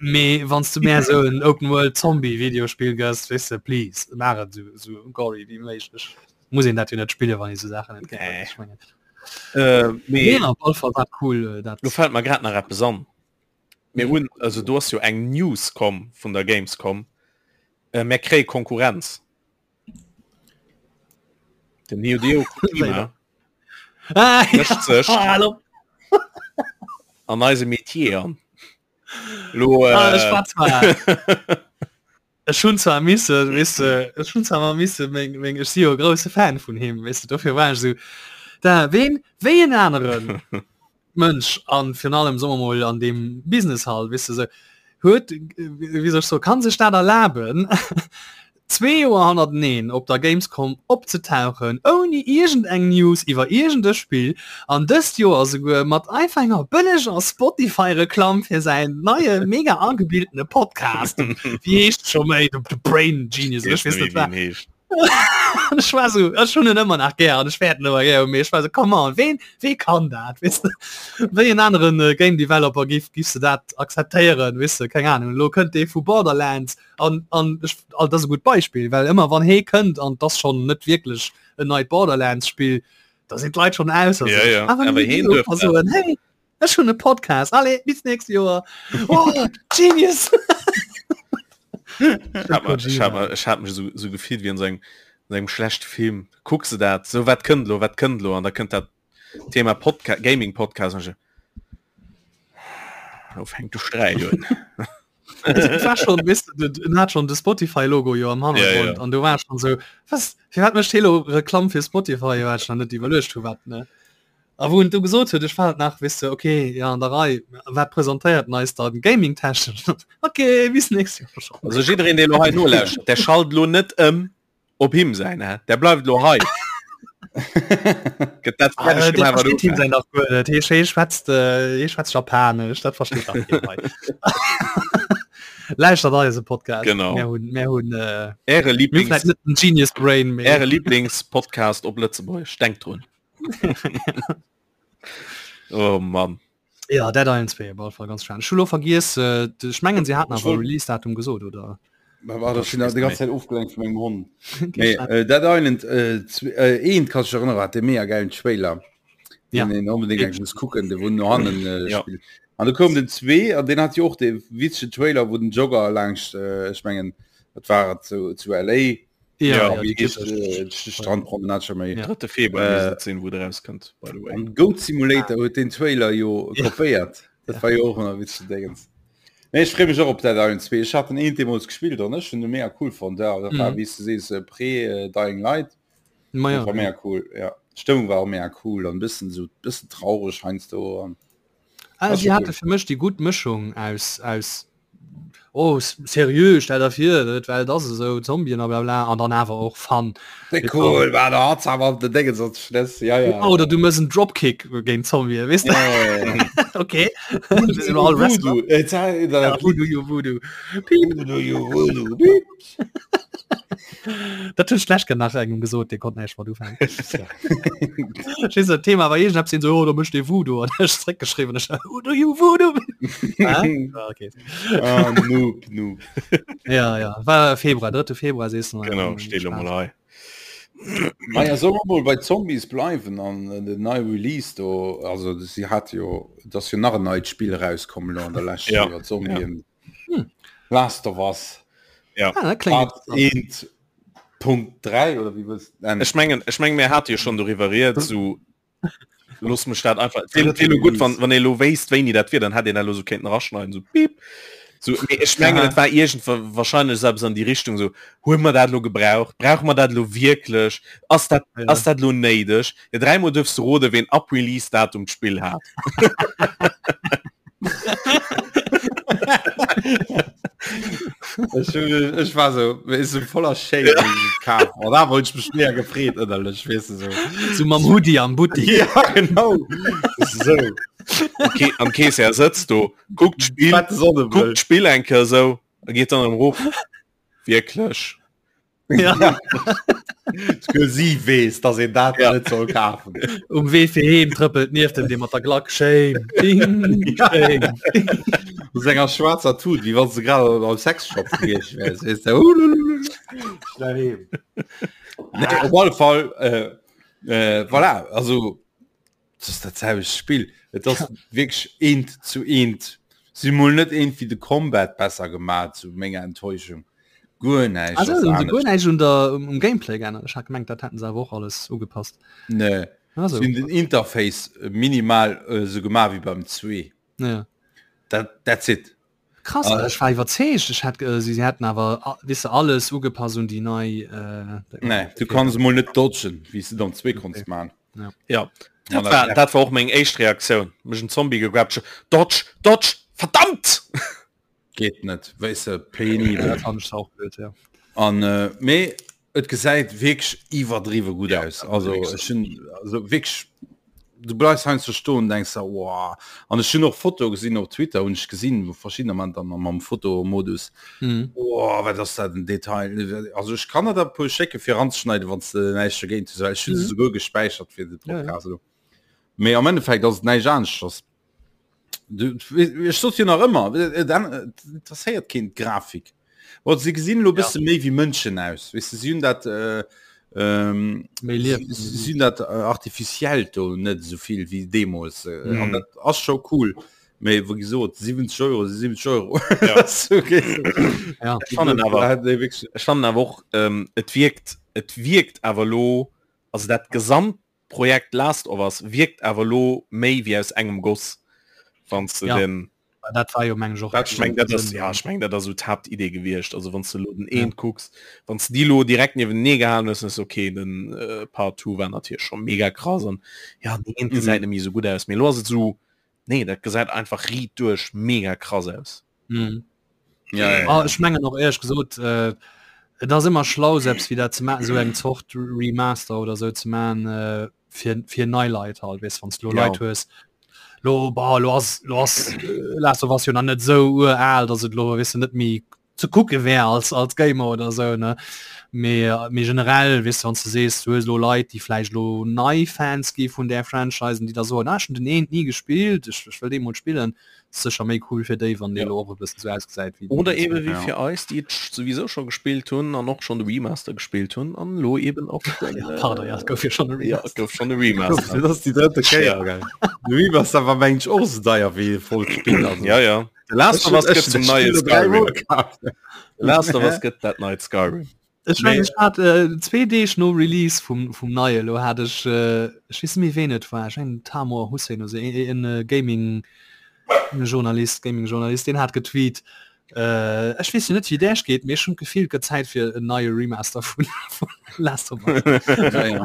Mee wann s du mär esou en Open World Zombie Videospill gëss, weess de, please, maach et esou esou gory wéi méiglech. Muss een dat jo net spillen, wann ee sou Saachen net gär huet, ech mengen. Äh, mee Mee op alle Fall war cool dat. Lo fält mer grad nach eppes an. Mir hunn, also do ass jo eng News komm vun der Gamescom, mär kréie Konkurrenz. Den Hideo Kojima ah, mëscht sech ah, an eise Metier an. Lo, ah, äh, war zwar Ech hunn zwar misse weess de, ech hunn zwar mal misse meng meng ech si jo e grousse Fan vun him weess de, dofir war ech esou da ween wéi en aneren Mënsch an virun allem soe mer mol an deem Business halt weess de sou huet wéi soll ech soen kann sech dat erlaben zwee Joer hannerteneen op der Gamescom opzetauchen ouni iergend eng News iwwer iergend e Spill an dëst Joer esouguer mat einfach enger bëlleger Spotify Reklamm fir säin neie mega agebildene Podcast wéi heescht scho méi The Brain Genius oder ech weess net wat. Ech war so, ech hunn en ëmmer nach gär an ech wäert en ëmmer gär hunn, mee ech war so, come on, ween, wee kann dat, weess de? Wéi en aneren äh, Game Developer giff, giffs de dat akzeptéieren, weess de, keng Ahnung, elo kënnt dee vu Borderlands an, an ech, all dat ass e gutt Beispill, well ëmmer wann hee kënnt an 't ass schonn net wierklech en neit Borderlands-Spill, da sinn d'Leit schonn ausser Ja, sech. ja. Awer Awer heen duerf dat. soen, hey, Ech hunn e Podcast. Allez, bis nächst Joer. Oh, Genius! Ich hab, ich hab, ich hab mech so, so gefillt wie an so engem, an engem schlechte Film. Kucks du dat? So wat kënnt lo, wat kënnt lo? An da kënnt dat Thema Podca Gaming Podcast. Und ich, Lo fänkt de Sträit un. Et war schon, weißt du, den hat schon de Spotify-Logo jo am Hannergrund Ja, ja. an du war schon so, was, fir wat mécht hee lo Reklamm fir Spotify? Jo, hat ech nach net iwwerluecht, vu wat, ne? A wou en du gesot huet, ech war et nach, weess de, okay, ja, an der Rei, wat presentéiert en eis dann gaming-technesch? Okay, bis nächst Joer schon. Also jiddereen, dee lo hei nolauschtert, der schalt lo net ëm op him säin, hä? Der bleift lo hei. Gëtt dat Ah, fäerdeg der gemaach, wat versteet him ufänkt. säin dach guer net. Hie hie schwätzt, äh, hie schwätzt Japanesch, dat versteet dach keen hei. Lauschtert eise Podcast. Genau. Mir hunn, mir hunn, äh, Äre mir hunn Lieblings, vläicht net den Genius Brain, mee Äre Lieblingspodcast op Lëtzebuergesch. Denkt drun. Oh Mann. Ja, Dead Island 2 op alle Fall ganz spannend. Ech hu lo vergiess, äh, ech mengen se haten Ech awer wollt- Release-Datum gesot, oder? War war das schon die ganze Zeit ofgelenkt von meinem Hund. Okay, Nee, äh, Dead Island äh, zwe- äh, eent kann ich erinnern, hat de mega geilen Trailer. Ja. Den een unbedingt eng muss kucken, de wo no hannen äh, Ja. spielt. An da koum den 2 an den hat jo och de witzege Trailer, wo den Jogger langscht äh, ech mengen, wat war et zu, zu LA Ja, Ja, ja, Wie déi heescht, typesch. äh, die Strandpromenade schon méi. Ja. 3. Februar Äh, misst et sinn, wou der rauskënnt, by the way. An Goat Simulator huet den Trailer jo Ja. kopéiert. Dat war jo och ëmmer witzege Dingens. Nee, ech freeë mech och op Dead Island 2. Ech hat den eent deemools gespillt an ech hunn de mega cool fonnt. Ja, dat war, Mhm. wéi s du sees, äh, pré äh, Dying Light. Ma Dat ja. war mega cool, ja. D'Stëmmung war och mega cool an bëssen so bëssen traureg heiansdo an Ah, War si schon hate cool. fir mech déi gutt Mëschung aus aus. Oh seriö, stell der vir d'Welt ass esou, Zombien a blabla an dann awer och Fun. Wéi cool war der hat awer de Déngen sonst Schlëss ja ja. Oder du mëss en Dropkick géint Zombie weess de? Okay Dat hunn ech d'lescht Kéier nach engem gesot, dee konnt näischt mat ufänken. Ech weess Thema war iergendeppes hien sou, oh do mécht ee Voodoo an ech zréckgeschriwwen ech Who do you voodoo? Ah, okay. Ah, noob, noob. Ja, ja, war Februar, 3. Februar sees du. Genau, steet lo mol hei. Naja, soll mer mol bei Zombies bleiwen an äh, den neie Release do, also si hat jo, et ass jo nach en neit Spill erauskomm lo an der Lescht Ja, iwwer Zombien. Hm. Last of Us Ja. Ah, dat kléngt Part 1.3 oder wéi wëlls de nennen? Ech mengen, ech mengen, mir hate jo schonn doriwwer rieds, sou Los mech dat einfach gut wann wann lo wéist wéini dat wier, dann hat een dat lo so kéinten raschneiden so piep. So, nee, ech mengen et war irgend wahrscheinlech selbst an die Richtung so hu mer dat lo gebraucht brauch mer dat lo wierklech ass dat ja. ass dat lo néideg ja, dreimal dürfst du rode wen ab Release Datum d'Spill hat. Ech, ech war so is so voller Shame ja. Oh, da wollt ich mich mehr gefreet ënnerlech wees du so. So mam Hoodie am Buttik. Ja genau. so. Okay, am Kees er sëtzt do guckt Spiel guckt Spiel enke so a geht dann am Ruf wierklech. Ja. Sie wees, dass een dat ja. net soll kafen. Um Wee fir heem trëppelt nieft dem dee mat der Glack Shame. Ding, shame. Aus enger schwarzer Tut, wie wann se grad am Sexshop gewiescht wärs. Wees du, Schnell heem. Nee, op alle Fall, äh, äh, voilà, also Das ass dat selwecht Spill. Et ass wierklech eent zu eent. Si hu mol net iergendwéi de Combat besser gemaach, zu menger Enttäuschung. Guer näischt Also ass hunn se guer anescht. näischt un der um Gameplay geännert? Ech hat gemengt, dat hätten se awer och alles ugepasst. Nee. Also Si hunn den Interface minimal esou gemaach wéi beim 2. Ja. Dat, that's it. Krass, Ah. ech war iwwerzeegt, ech hat äh, si hätten awer a- weess de, alles ugepasst un déi nei äh, Nee, du kanns mol net dodgen, wéi s de dann 2 konns Okay. man. Ja dat war, dat war och meng éischt Reaktioun. Mech en Zombie gegrabt, Dodge, Dodge, verdammt! Geet net, weess de, penibel. Dat fand ech auch blöd, ja. An äh, mee et gesäit wierklech iwwerdriwwe gutt Ja, aus. Also wierklech. ech hunn also wierklech du bleifs heiansdo stoen denkst der wow. An ech hunn och Fotoe gesinn op Twitter hunn ech gesinn, wou verschiddener man dann mam Fotomodus Mhm. oh, wat ass dat en Detail. Also ech kann der der e puer schécke fir eranzeschneiden, wann s de näischt dogéint hues, well ech hunn se Mhm. souguer gespäichert fir de Ja, ja. Podcast elo. Mee am Endeffekt ass et näischt aneschters. Du, ech sot jo nach ëmmer, et interesséiert keen d'Grafik. Bon, se gesinn elo Ja. bësse méi wéi Mënschen aus. Weess de, si hunn dat äh, ähm, Méi liewen. si si hunn dat äh, artificiellt do net esou vill wéi deemools. Äh, an Mhm. dat ass scho cool. Mee wéi gesot, 70 Euro si 70 Euro. Ja. okay. Ja. Ech fannen awer, Da hätt ee wierklech- ech fannen awer och, ähm, et wierkt, et wierkt awer lo, also dat gesamt Projekt Last of Us wierkt awer lo méi wéi aus engem Goss, wann s de Ja. den Dat war jo meng ech och Ech meng dat ass ja ech meng dat ass sou d'Haaptidee gewiescht. Also wann s de lo den eent kucks, wann s de déi lo direkt niewentenee gehalen hues, dann ass okay den äh, Part 2 war natierlech scho mega krass an ja den eent gesäit net méi sou gutt aus, mee lo ass et sou nee dat gesäit einfach riit duerch mega krass aus. Mhm. Ja, ja, Ah, ja. ech mengen och éierlech gesot, äh, et ass ëmmer schlau selbst wéi dat ze maachen, esou eng Zort Remaster oder sou ze maachen äh, fir, fir nei Leit halt, weess wann s du lo Ja. Leit hues, lo bah, lo ass lo ass äh, Last of Us jo nach net sou ural, datt et lo weess de net méi ze kucke wär als als Gamer oder sou ne. Mee mee generell weess de wann s du sees du hues lo Leit déi vläicht lo nei Fans gi vun där Franchise an déi da soen, ah ech hunn den eent ni gespillt, ech ech wëll dee mol spillen, sécher méi cool fir déi wann dee Ja. lo och e bëssen sou ausgesäit wéi Oder den eben wéi Ja. fir eis, déi et souwisou scho gespillt hunn an och schonn de Remaster gespillt hunn an elo eben och den, Ja, pardon, ja, et gouf jo schonn e ja, et Remaster. gouf schonn e Remaster. Dat ass déi drëtte Kéier, Ja. gell? De Remaster war mengen ech och esou deier wéi e vollt Spill. Also. Ja, ja. The Last Ech of Us hunn gëtt ech zum dat neie Spill elo dräimol Skyrim. kaf. The Last of Us gëtt dat neit Skyrim. Ech meng ech hat äh, zwee Deeg no Release vum, vum neie lo hat ech äh, ech weess net méi ween et war, ech mengen Tamor Hussein oder sou, en e Gaming Journalist, Gaming Journalist, deen hat getweet äh, ech weess jo net wéi et Äech geet, mee ech hunn d'Gefill et gëtt Zäit fir en neie Remaster vun vun Last of Us. Ja, ja.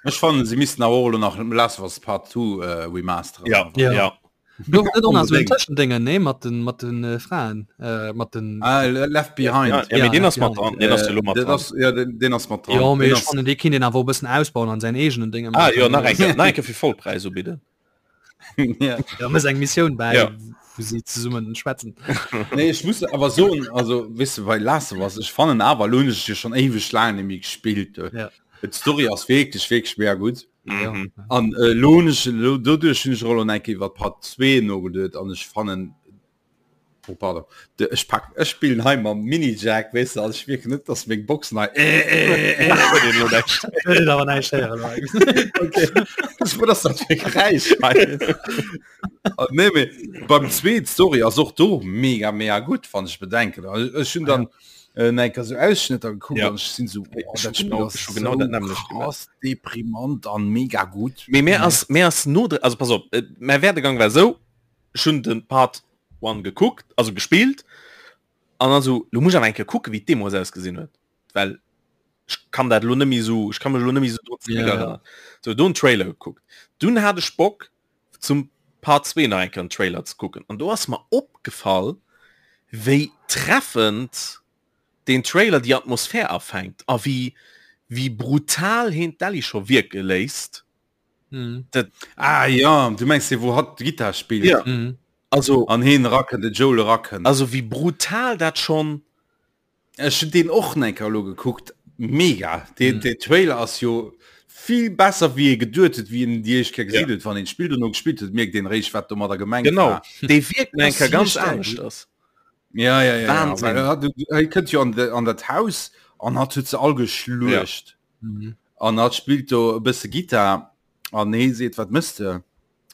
Ech fannen se missten awer och elo nach Last of Us Part 2 äh, remasteren. Ja, Ja. ja. Gouf net och nach so en Tëschendéngen, nee, mat den, mat den äh, Fraen, äh, mat den. Ah, Left Behind. Ja, ja, ja, den ass mat dran. Den ass jo mat dran. Ja, den, den ass mat dran. Jo, mee ech fannen, dee kinnt een awer och e bëssen ausbauen an säin eegenen Dénge Ah, jo, nach eng Kéier, nach eng Kéier fir Vollpräis ubidden. ja. Ja, mëss eng Missioun bäi, Ja. wou si zesummen schwätzen. Nee, ech muss awer soen, also, weess de, bei Last of Us, ech fannen awer, lo hunn ech et jo schonn éiweg laang net méi gespillt. Ja. D'Story ass wierklech, wierklech mega gutt. Ja. Mhm. An äh, lo hunn ech, lo, doduerch hunn ech och lo eng Kéier iwwer Part 2 nogeduet an ech fannen, oh pardon, de, ech pak, ech spillen hei mam Mini-Jack, weess de, also ech mierken net, dass meng Boxen hei äh, äh, äh. Huet een lo näischt. Huet een awer näischt héieren, Mike. Okay. Was ass dat fir Geräisch hei? Ah, nee, mee beim zweet Story ass och do mega mega gutt, wann ech bedenken. Also, ech hunn dann äh, eng Kéier sou Ausschnëtter gekuckt Ja. an ech sinn sou, oh, Ech dat hu Spill genau, ass ech hu genau sou dat nämmlecht gemaach. krass deprimant an mega gutt. Mee mir ass, mir ass no, also pass op, äh, mäi Werdegang war sou, ech hunn den Part 1 gekuckt, also gespillt, an dann sou, lo muss ech awer eng Kéier kucken, wéi d'Demo ausgesinn huet, well ech kann dat lo net méi sou, ech kann mech lo net méi sou drun Ja, ja. zréckerënnern. Sou, do en Trailer gekuckt. Dunn hat ech Bock, zum Part 2 nach eng Kéier en Trailer ze kucken an do ass mer opgefall wéi treffend deen Trailer déi Atmosphär afänkt a wéi wéi brutal heen d'Ellie scho wierke léisst. Mhm. Dat Ah ja, du mengs dee wou hatt d'Gittar spillt ja Mhm. also an heen erakënnt, de Joel erakënnt. also wéi brutal dat schonn Ech hun deen och enker elo gekuckt, mega! Deen mm. Trailer ass jo vill besser wéi ee geduet huet, wéi een déi éischt Kéier gesinn huet. Wann een d'Spill dono gespillt huet, mierkt een eréischt wat domadder gemengt genau. war. Dee wierkt enker ganz anescht ass. Ja, ja, ja, Wahnsinn. ja. Hei kënnt jo an, de, an dat Haus an hat huet se all geschluecht. Ja. Mhm. An hat spillt do e bësse Gitar an hee seet wat mëss de?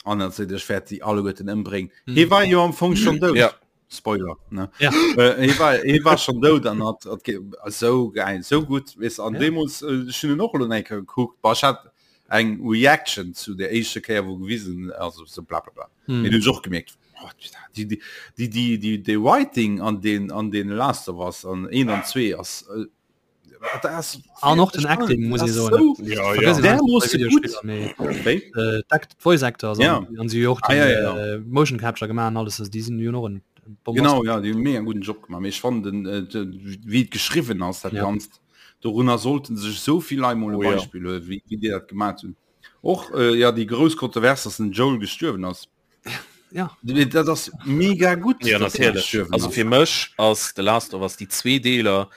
An dann seet ech wäert déi alleguerten ëmbréngen. Mhm. Hee war jo am Fong schon dout. Ja. Spoiler ne? Ja. Äh, hee war, hee war schon dout an hat, hat sou geil, sou gutt weess an Ja. deemools äh, ech hunn en och elo eng Kéier gekuckt. Bah, ech hat eng Reaction zu der éischter Kéier wou gewisen also sou bla bla bla. Mhm. Mee du hunn ech och gemierkt oh, déi, déi, déi, déi, déi, déi Writing an den an den Last of Us an 1 an 2 ass äh, An och den Acting muss ee soen. Voice Actors Ja. an si och Ah, ja, ja, ja. äh, Motion Capture gemaach an alles, also déi sinn jo och en Genau ja, déi hunn mega gudden Job gemaach. Mee ech fannen den äh, de, wéi et geschriwwen ass dat Ja. Ganzt, dorunner sollten sech esou vill Leit mol e Oh ja. Beispill huelen, wéi, wéi déi dat gemaach hunn. Och äh, ja déi grouss Kontrovers, dass den Joel gestuerwen ass. Ja. Dat ass mega gutt. Ja dass hie natierlech. gestuerwen Also ass. fir mech ass The Last of Us déi zwee Deeler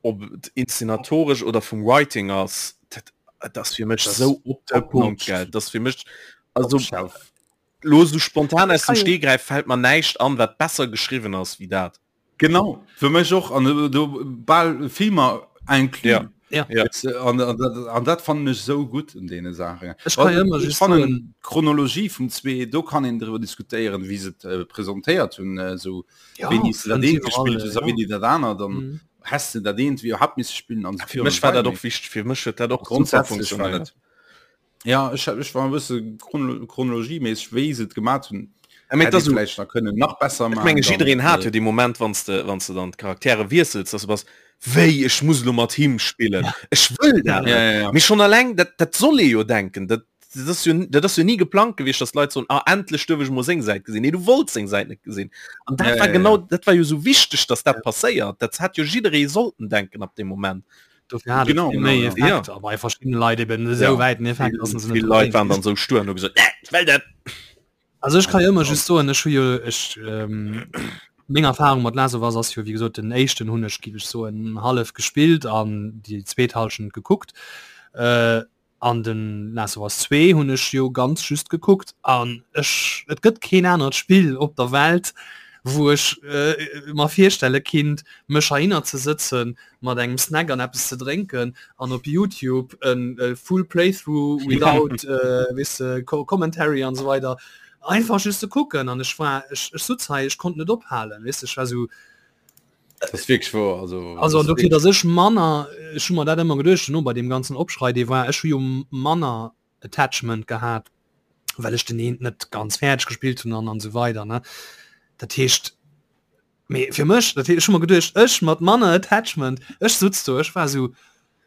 ob et inszenatoresch oder vum Writing ass, dat, dat ass fir mech Das sou op de top Punkt notch. gell. Dat ass fir mech also Top shelf. lo sou spontan aus dem kann jo- Stegreif fällt mer näischt an, wat besser geschriwwen ass wéi dat. Genau, fir mech och an do, do bal Filmer inclus. Ja. Ja. Ja. Weißt du, An, an, dat, an dat fannen ech sou gutt un deene Saachen. Ech kann jo ëmmer Ech just fannen soen- d'Chronologie vum zwee, do kann een driwwer diskutéieren, wéi se et äh, presentéiert hunn, äh, sou Ja, wéini s de dat fënnt eent iwwerall, gespillt hues a ja. wéini dat anert, dann Mhm. häss de dat eent wéi iwwerhaapt misse spillen an esou Fir mech war dat och wichteg, fir mech huet dat och super Grundsätzlech war funktionéiert. dat. Ja, ech, ech war e bësse chrono chronologieméisseg, wéi se et gemat hunn, Ja, mee hätt et ee ass esou, vläicht nach kënnen nach besser Ech maachen. menge dann, jiddereen hat äh, jo dee Moment, wann s de, wann s de dann d'Charaktere wiessels, dass du bass, wéi ech muss elo mat him spillen, ech wëll dat Ja, net. ja, ja. Mee schonn alleng dat, dat soll ee jo denken, dat, dat ass jo, dat ass jo ni geplangt gewiescht, dass d'Leit soen, ah endlech duerf ech mol seng Säit gesinn. Nee, du wollts seng Säit net gesinn. An dat Ja, war ja, genau, ja. dat war jo sou wichteg, dass dat passéiert. Dat hätt jo jidderee sollten denken ab deem Moment. Dofir hat et Genau, vill genau, méi ja. Effekt, a bei verschiddene Leit eben esou Ja. wäiten Effekt, dass se net Vill Leit waren dann sou stur an hu gesot, nee, ech wëll dat. Also ech kann jo ëmmer just soen, ech hu jo ech ähm, meng Erfahrung mat Last of Us ass jo wéi gesot den éischten hunn ech giff ech soen hallef gespillt an déi zweet Hallschent gekuckt. Äh, an den Last of Us 2 hunn ech jo ganz just gekuckt an ech et gëtt keen anert Spill op der Welt, wou ech äh, mer virstelle kinnt mech heihinner ze sëtzen mat engem Snack an eppes ze drénken an op YouTube en äh, full playthrough without äh, weess de, Co commentary an esou weider einfach just ze kucken an ech war ech, ech sutz hei ech konnt net ophalen weess de, ech war sou Das ist wirklich wahr. Also, also das an dofir dass ech manner ech hu mer dat ëmmer geduecht no bei deem ganzen Opschrei dee war ech hu jo manner Attachment gehat well ech den eent net ganz fäerdeg gespillt hunn an an esou weider ne dat heescht Mee fir mech, dat ech hu mer geduecht, ech mat manner Attachment, ech sutz do, ech war sou.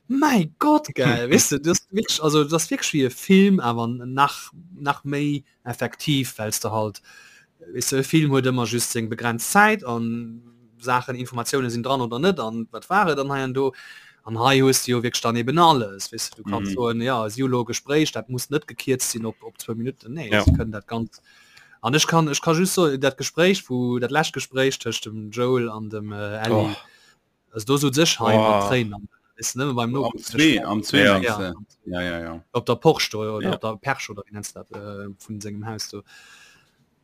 Mäi Gott gell, weess de, das wierklech, also das wierklech wéi e Film, awer nach nach méi effektiv, well s de halt, weess de, e Film huet ëmmer just seng begrenzt Zäit an Saachen, Informatioune sinn dran oder net an wat war et an hei an do. An hei hues de jo wierklech dann eben alles, weess de, du kanns soen, jo si hu lo e Gespréich, dat muss net gekierzt sinn op op zwou Minutten, nee, se kënnen dat ganz an ech kann ech ka just soen, dat Gespréich wou dat lescht Gespréich tëscht dem Joel an dem Ellie, Also do sot sech hei mat Tréinen am is nëmme beim no am zwee am zwee ja. Ja. Ja, ja, ja. op der Porsche do, oder ja. op der Perch oder wie nennst dat äh, vun sengem Haus do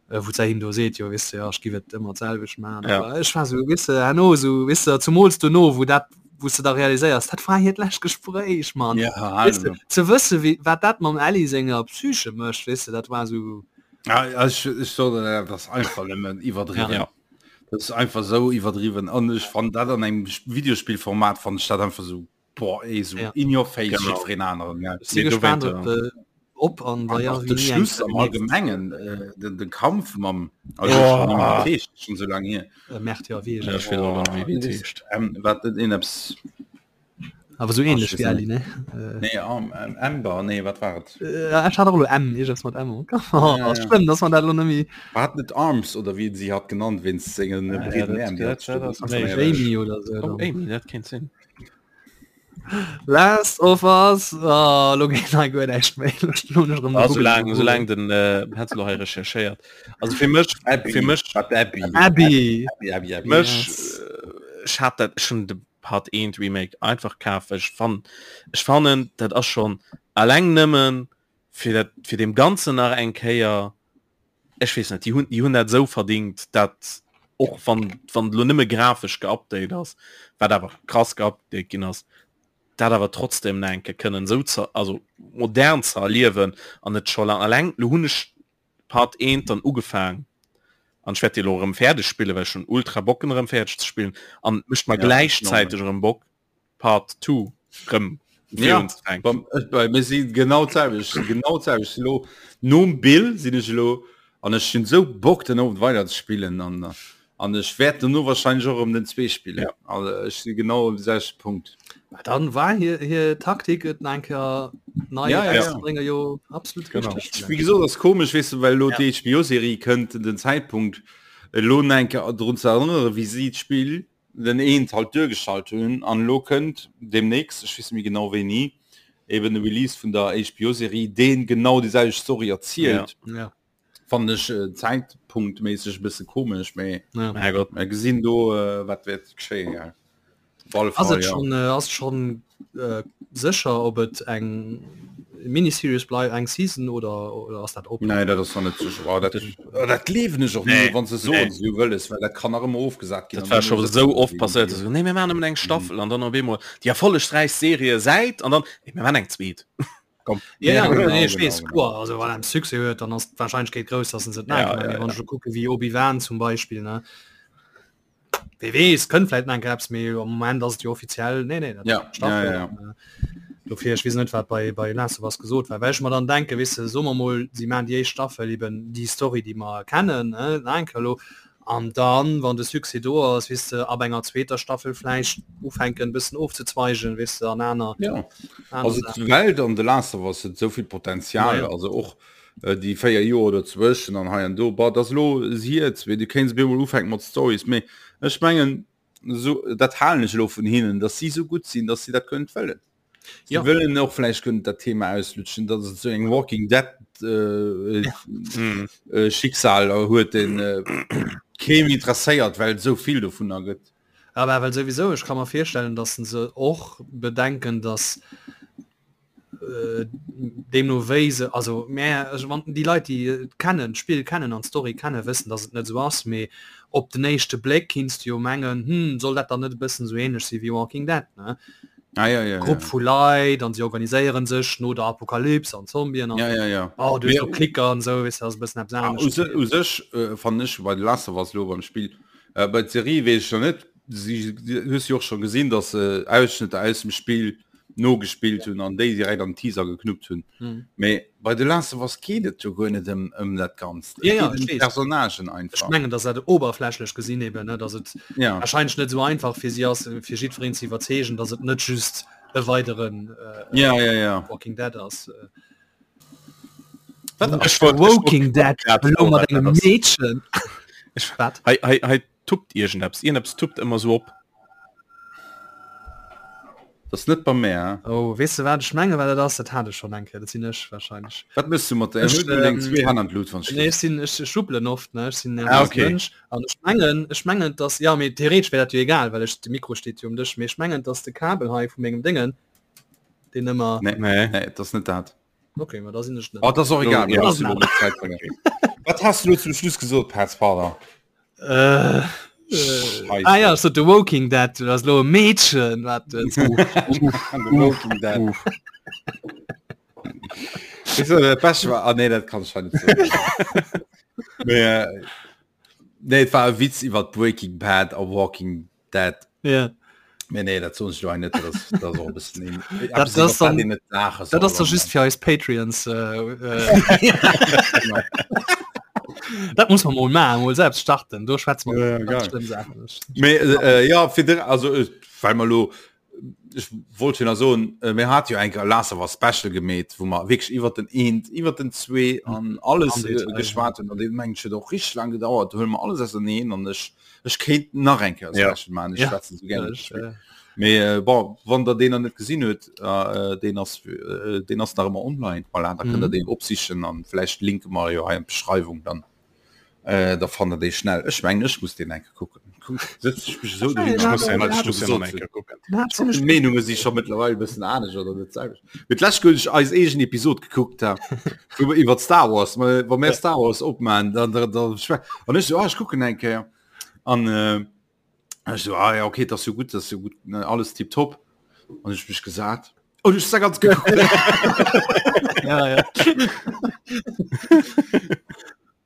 äh, wou se him do seet jo wis ja ech gi et ëmmer d'selwecht man ja. ech war so wisse herno so wisse zumools du no wou dat wou du da realiséiers dat war hiert lescht Gespréich man ja, weißt du, ze wësse wie wat dat mam Ellie senger Psyche mécht wisse dat war so ja, ech, ech so, das einfach nëmmen iwwerdriwwen ja. Das ist einfach so iwwerdriwwen an ech fand dat an engem Videospielformat fand ich dat einfach so boah, ey, so ja. in your face jiddwereen aneren ja. Si gespannt op, äh, op an wa ja, de Schluss am Allgemengen äh, den, den Kampf mam also oh. schon so lange hier äh, Mert ja wie ja, oh, ähm, wat in apps Awer sou ähnlech wéi Ellie, ne? Nee, um, um, Amber, nee, wat war et? Äh, ech hat och elo M, iergends mat M am Kapp. Oh, Ja, ass ja. schlëmm, dass man dat elo net méi. War et net Arms oder wéi een si hat genannt wéinst sengen Ah, ja, breeden dat, Äerm, déi dat, hat dat ass Ass dat méiglech. Jamie oder sou Oh, dann? Amy, dat kéint sinn. Last of Us, oh, elo geet hei guer näischt méi. Elo elo hunn ech erëm Ah, gegoogelt, soulaang, gegoogelt. soulaang den äh, hätt elo hei recherchéiert. Also fir mech, Abby, fir mech, wat Abby? Abby! Abby, Abby, Abby. mech, Yes. äh, ech hat dat schon de Part 1 Remake einfach kaf ech fan ech fannen dat ass schon alleng nëmmen fir dat fir dem ganzen nach eng Kéier ech weess net déi hunn déi hunn dat esou verdingt dat och wann wann lo nëmme grafesch geupdate ass wat awer krass geupdate ginn ass dat awer trotzdem nach eng Kéier kënnen esou ze also modern ze erliewen an net scho lang alleng lo hunn ech Part 1 dann ugefaang an ech wäert déi elo erëm fäerdeg spillen, well ech hunn ultra Bock en erëm fäerdeg ze spillen an et mécht mer Ja, gläichzäiteg erëm Bock Part 2 erëm Ja, virun ze fänken. beim, bei mir si genau d'selwecht, genau d'selwecht. Elo nom Bill sinn ech elo an ech hunn esou Bock den Owend weider ze spillen an An ech wäert dono wahrscheinlech och erëm den 2 spillen. Ja. Also ech si genau um selwechte Punkt. Ma dann war hir hir Taktik et nach eng Kéier nei Ja, ja, ja. rauszebréngen jo absolut Genau. richteg. Wéi gesot ass komesch, weess de, well elo Ja. déi HBO-Serie kënnt, den Zäitpunkt elo nach eng Kéier drun ze erënnere wéi si d'Spill den eent halt duergestallt hunn an elo kënnt deemnächst, ech weess net méi genau wéini, eben de Release vun der HBO-Serie, deen genau déi selwecht Story erzielt. Ja. Fannen ech zäitpunktméisseg e bësse komesch, mee Ja. Herrgott. mer gesinn do äh, wat wäert geschéien. Ja. Op alle Ass Fall, et ja. schon, äh, ass schon äh, sécher, ob et eng Miniseries bleift, eng Season oder, oder ass dat open? Nee, dat ass nach net sécher. Oh, dat, oh, dat gleewen ech och Nee, net, wann se soen, nee. se hu wëlles, well dat kann nach ëmmer ofgesat ginn. Dat an war dann scho hu se esou oft déi passéiert, Idee. dass se nee mir maachen nëmmen eng Staffel an dann op eemol déi erfollegräichst Serie säit an dann nee mir maachen eng zweet. Komm. Ja, ja, genau, nee, ich genau, weess, genau. kloer, also wann en Succès huet, dann ass d'Wahrscheinlechkeet grouss, dass en se Ja, net ja, wann ja. ech kucke wéi Obi-Wan zum Beispill ne Wee weess, kënnt vläit nach eng Kéier eppes, mee am Moment ass et jo offiziell nee nee dat Ja, Staffel ja, ja, ja. an, äh, dofir ech weess net wat bei bei Last of Us gesot war, well ech mer dann denke weess de, soe mer mol si maachen déi éischt Staffel eben déi Story déi mer kennen ne nach eng Kéier elo An dann, wann de Succès do ass, weess de, ab enger zweeter Staffel vläicht ufänken e bëssen ofzezweigen, weess de, an aner, Ja, aner also Saachen. d'Welt an The Last of Us huet esou vill Potenzial, Naja. also och déi 4 Joer dozwëschen an hei an do, bah, dat ass elo siert, mee du kéints op eemol ufänken mat Stories, mee ech mengen, esou, dat halen ech elo vun hinnen, datt si esou gutt sinn, datt si dat kënnen wëllen. Si Ja. wëllen och vläicht kënnen dat Thema auslutschen, datt et esou eng Walking Dead äh, Mm. äh, Schicksal huet, deen äh, keem interesséiert, well et esou vill dovunner gëtt. Aber well souwisou, ech ka mer virstellen, datt se och bedenken, datt äh, deemno wéi se, also mä ech wann déi Leit déi et kennen, d'Spill kennen an d'Story kennen, wëssen, datt et net esou ass, mee op den éischte Bléck kinns de jo mengen, hm, soll dat dann net e bëssen esou ähnlech si wéi Walking Dead, ne? Ah, ja, ja, Grupp ja. vu Leit an si organiséieren sech no der Apokalyps an Zombien an Ja, ja, ja. oh, du hues Mee- do Klicker an esou, weess de, ass e bëssen eppes Ah, u anescht. se- u sech äh, fannen ech bei The Last of Us lo beim Spill, äh, bei der Serie weess ech noch net, si si- hues jo och schon gesinn, dass se Ausschnëtter aus dem Spill nogespillt hunn an déi direkt an den Teaser geknuppt hunn. Mhm. Mee bei The Last of Us geet et jo guer net ëm ëm dat Ganzt. Et Ja, ja, geet ech ëm weess. d'Personnagen Ech einfach. mengen, dass dat oberflächlech gesinn eben, ne, dass et Ja. wahrscheinlech net esou einfach fir si ass, fir jiddwereen ze iwwerzeegen, dass et net just. e weideren äh, ja, ja, ja. Walking Dead ass. Äh. Ech wollt Walking Dead elo mat engem Meedchen. Ech wat? Hei, hei, hei tuppt iergendeppes. Iergendeppes tuppt ëmmer sou op. Das ass net bei mär. Oh, weess de wat ech mengen, wat dat ass? Dat hat ech schonn eng Kéier. Dat sinn ech wahrscheinlech. Wat mëss du mat der? Ech, Huel du deng ähm, zwee Hänn an d'Lut, wann ech Nee, ech sinn, ech schubbelen oft, ne? Ech sinn Ah, nervöse okay. Mënsch. An ech mengen, ech mengen, dass, ja, mee theoretesch wär dat jo egal, well ech, de Mikro steet jo um Dësch, mee ech mengen, dass de Kabel hei vu mengem Déngen, deen ëmmer. Nee, Nee. nee, dat ass net dat. Okay, ma da sinn ech net. Oh, das ist auch egal. Ja, das ist Zeit Wat hast du zum Schluss gesot, Patz Pardon? Äh, äh, ah ja, so The Walking Dead, du hast lo e Mädchen, wat äh, The Walking Dead. Weißt du, dat Beste war, ah nee, dat kann ich nicht sagen. Nee, äh, nee, et war e Witz iwwer Breaking Bad a Walking Dead. Ja. Nee, nee, dat soen ech lo net, dat ass, dat ass och e bëssen een, Dat eppes, iwwer ass dann- wat een net laache Dat soll ass doch an- just fir eis Patreons. Äh, äh, dat muss man mol maachen, mol selbst starten. Do schwätze mer Ja, ja, ganz geil. schlimm Saachen. Mee, äh, ja, fir de, also, äh, well mer lo, ech wollt jo nach soen, äh, mir hat jo eng Kéier Last of Us Special gemeet, wou mer wierklech iwwer den eent, iwwer den zwee an alles Am äh, Detail, geschwat hunn. An dee mengen ech huet och richteg laang gedauert. Do huele mer alles auserneen an ech, ech kéint nach eng Kéier Ja. Special maachen. Ech Ja. schwätzen sou gär iwwer Ech, das Spill. äh, Mee äh, bon, wann der deen nach net gesinn huet, äh, deen ass, äh, deen ass nach ëmmer online. Voilà, da kënnt der Mhm. deen opsichen an vläicht linke mer jo hei an d'Beschreiwung dann. Äh, da fannt der dee schnell. Ech mengen, ech muss deen eng Kéier kucken. Sëtz ech mech esou dohin, Ech muss an den, ech muss den gesot eng Kéier kucken. den hat ziemlech D'Meenunge si scho mëttlerweil e bëssen anescht oder net d'selwecht. Mee d'lescht Kéier, hunn ech eis eegen Episod gekuckt, ha, wou mer iwwer Star Wars, ma wa mir Star Wars opmachen, dann, dann, dann schwä an ech so, ah, ech kucken eng Kéier. An äh, ech so, ah ja, okay, dat ass jo gutt, dat ass jo gutt, ne, alles tiptop. An ech mech gesat. Oh, du hast ganz geguckt. Ja, ja.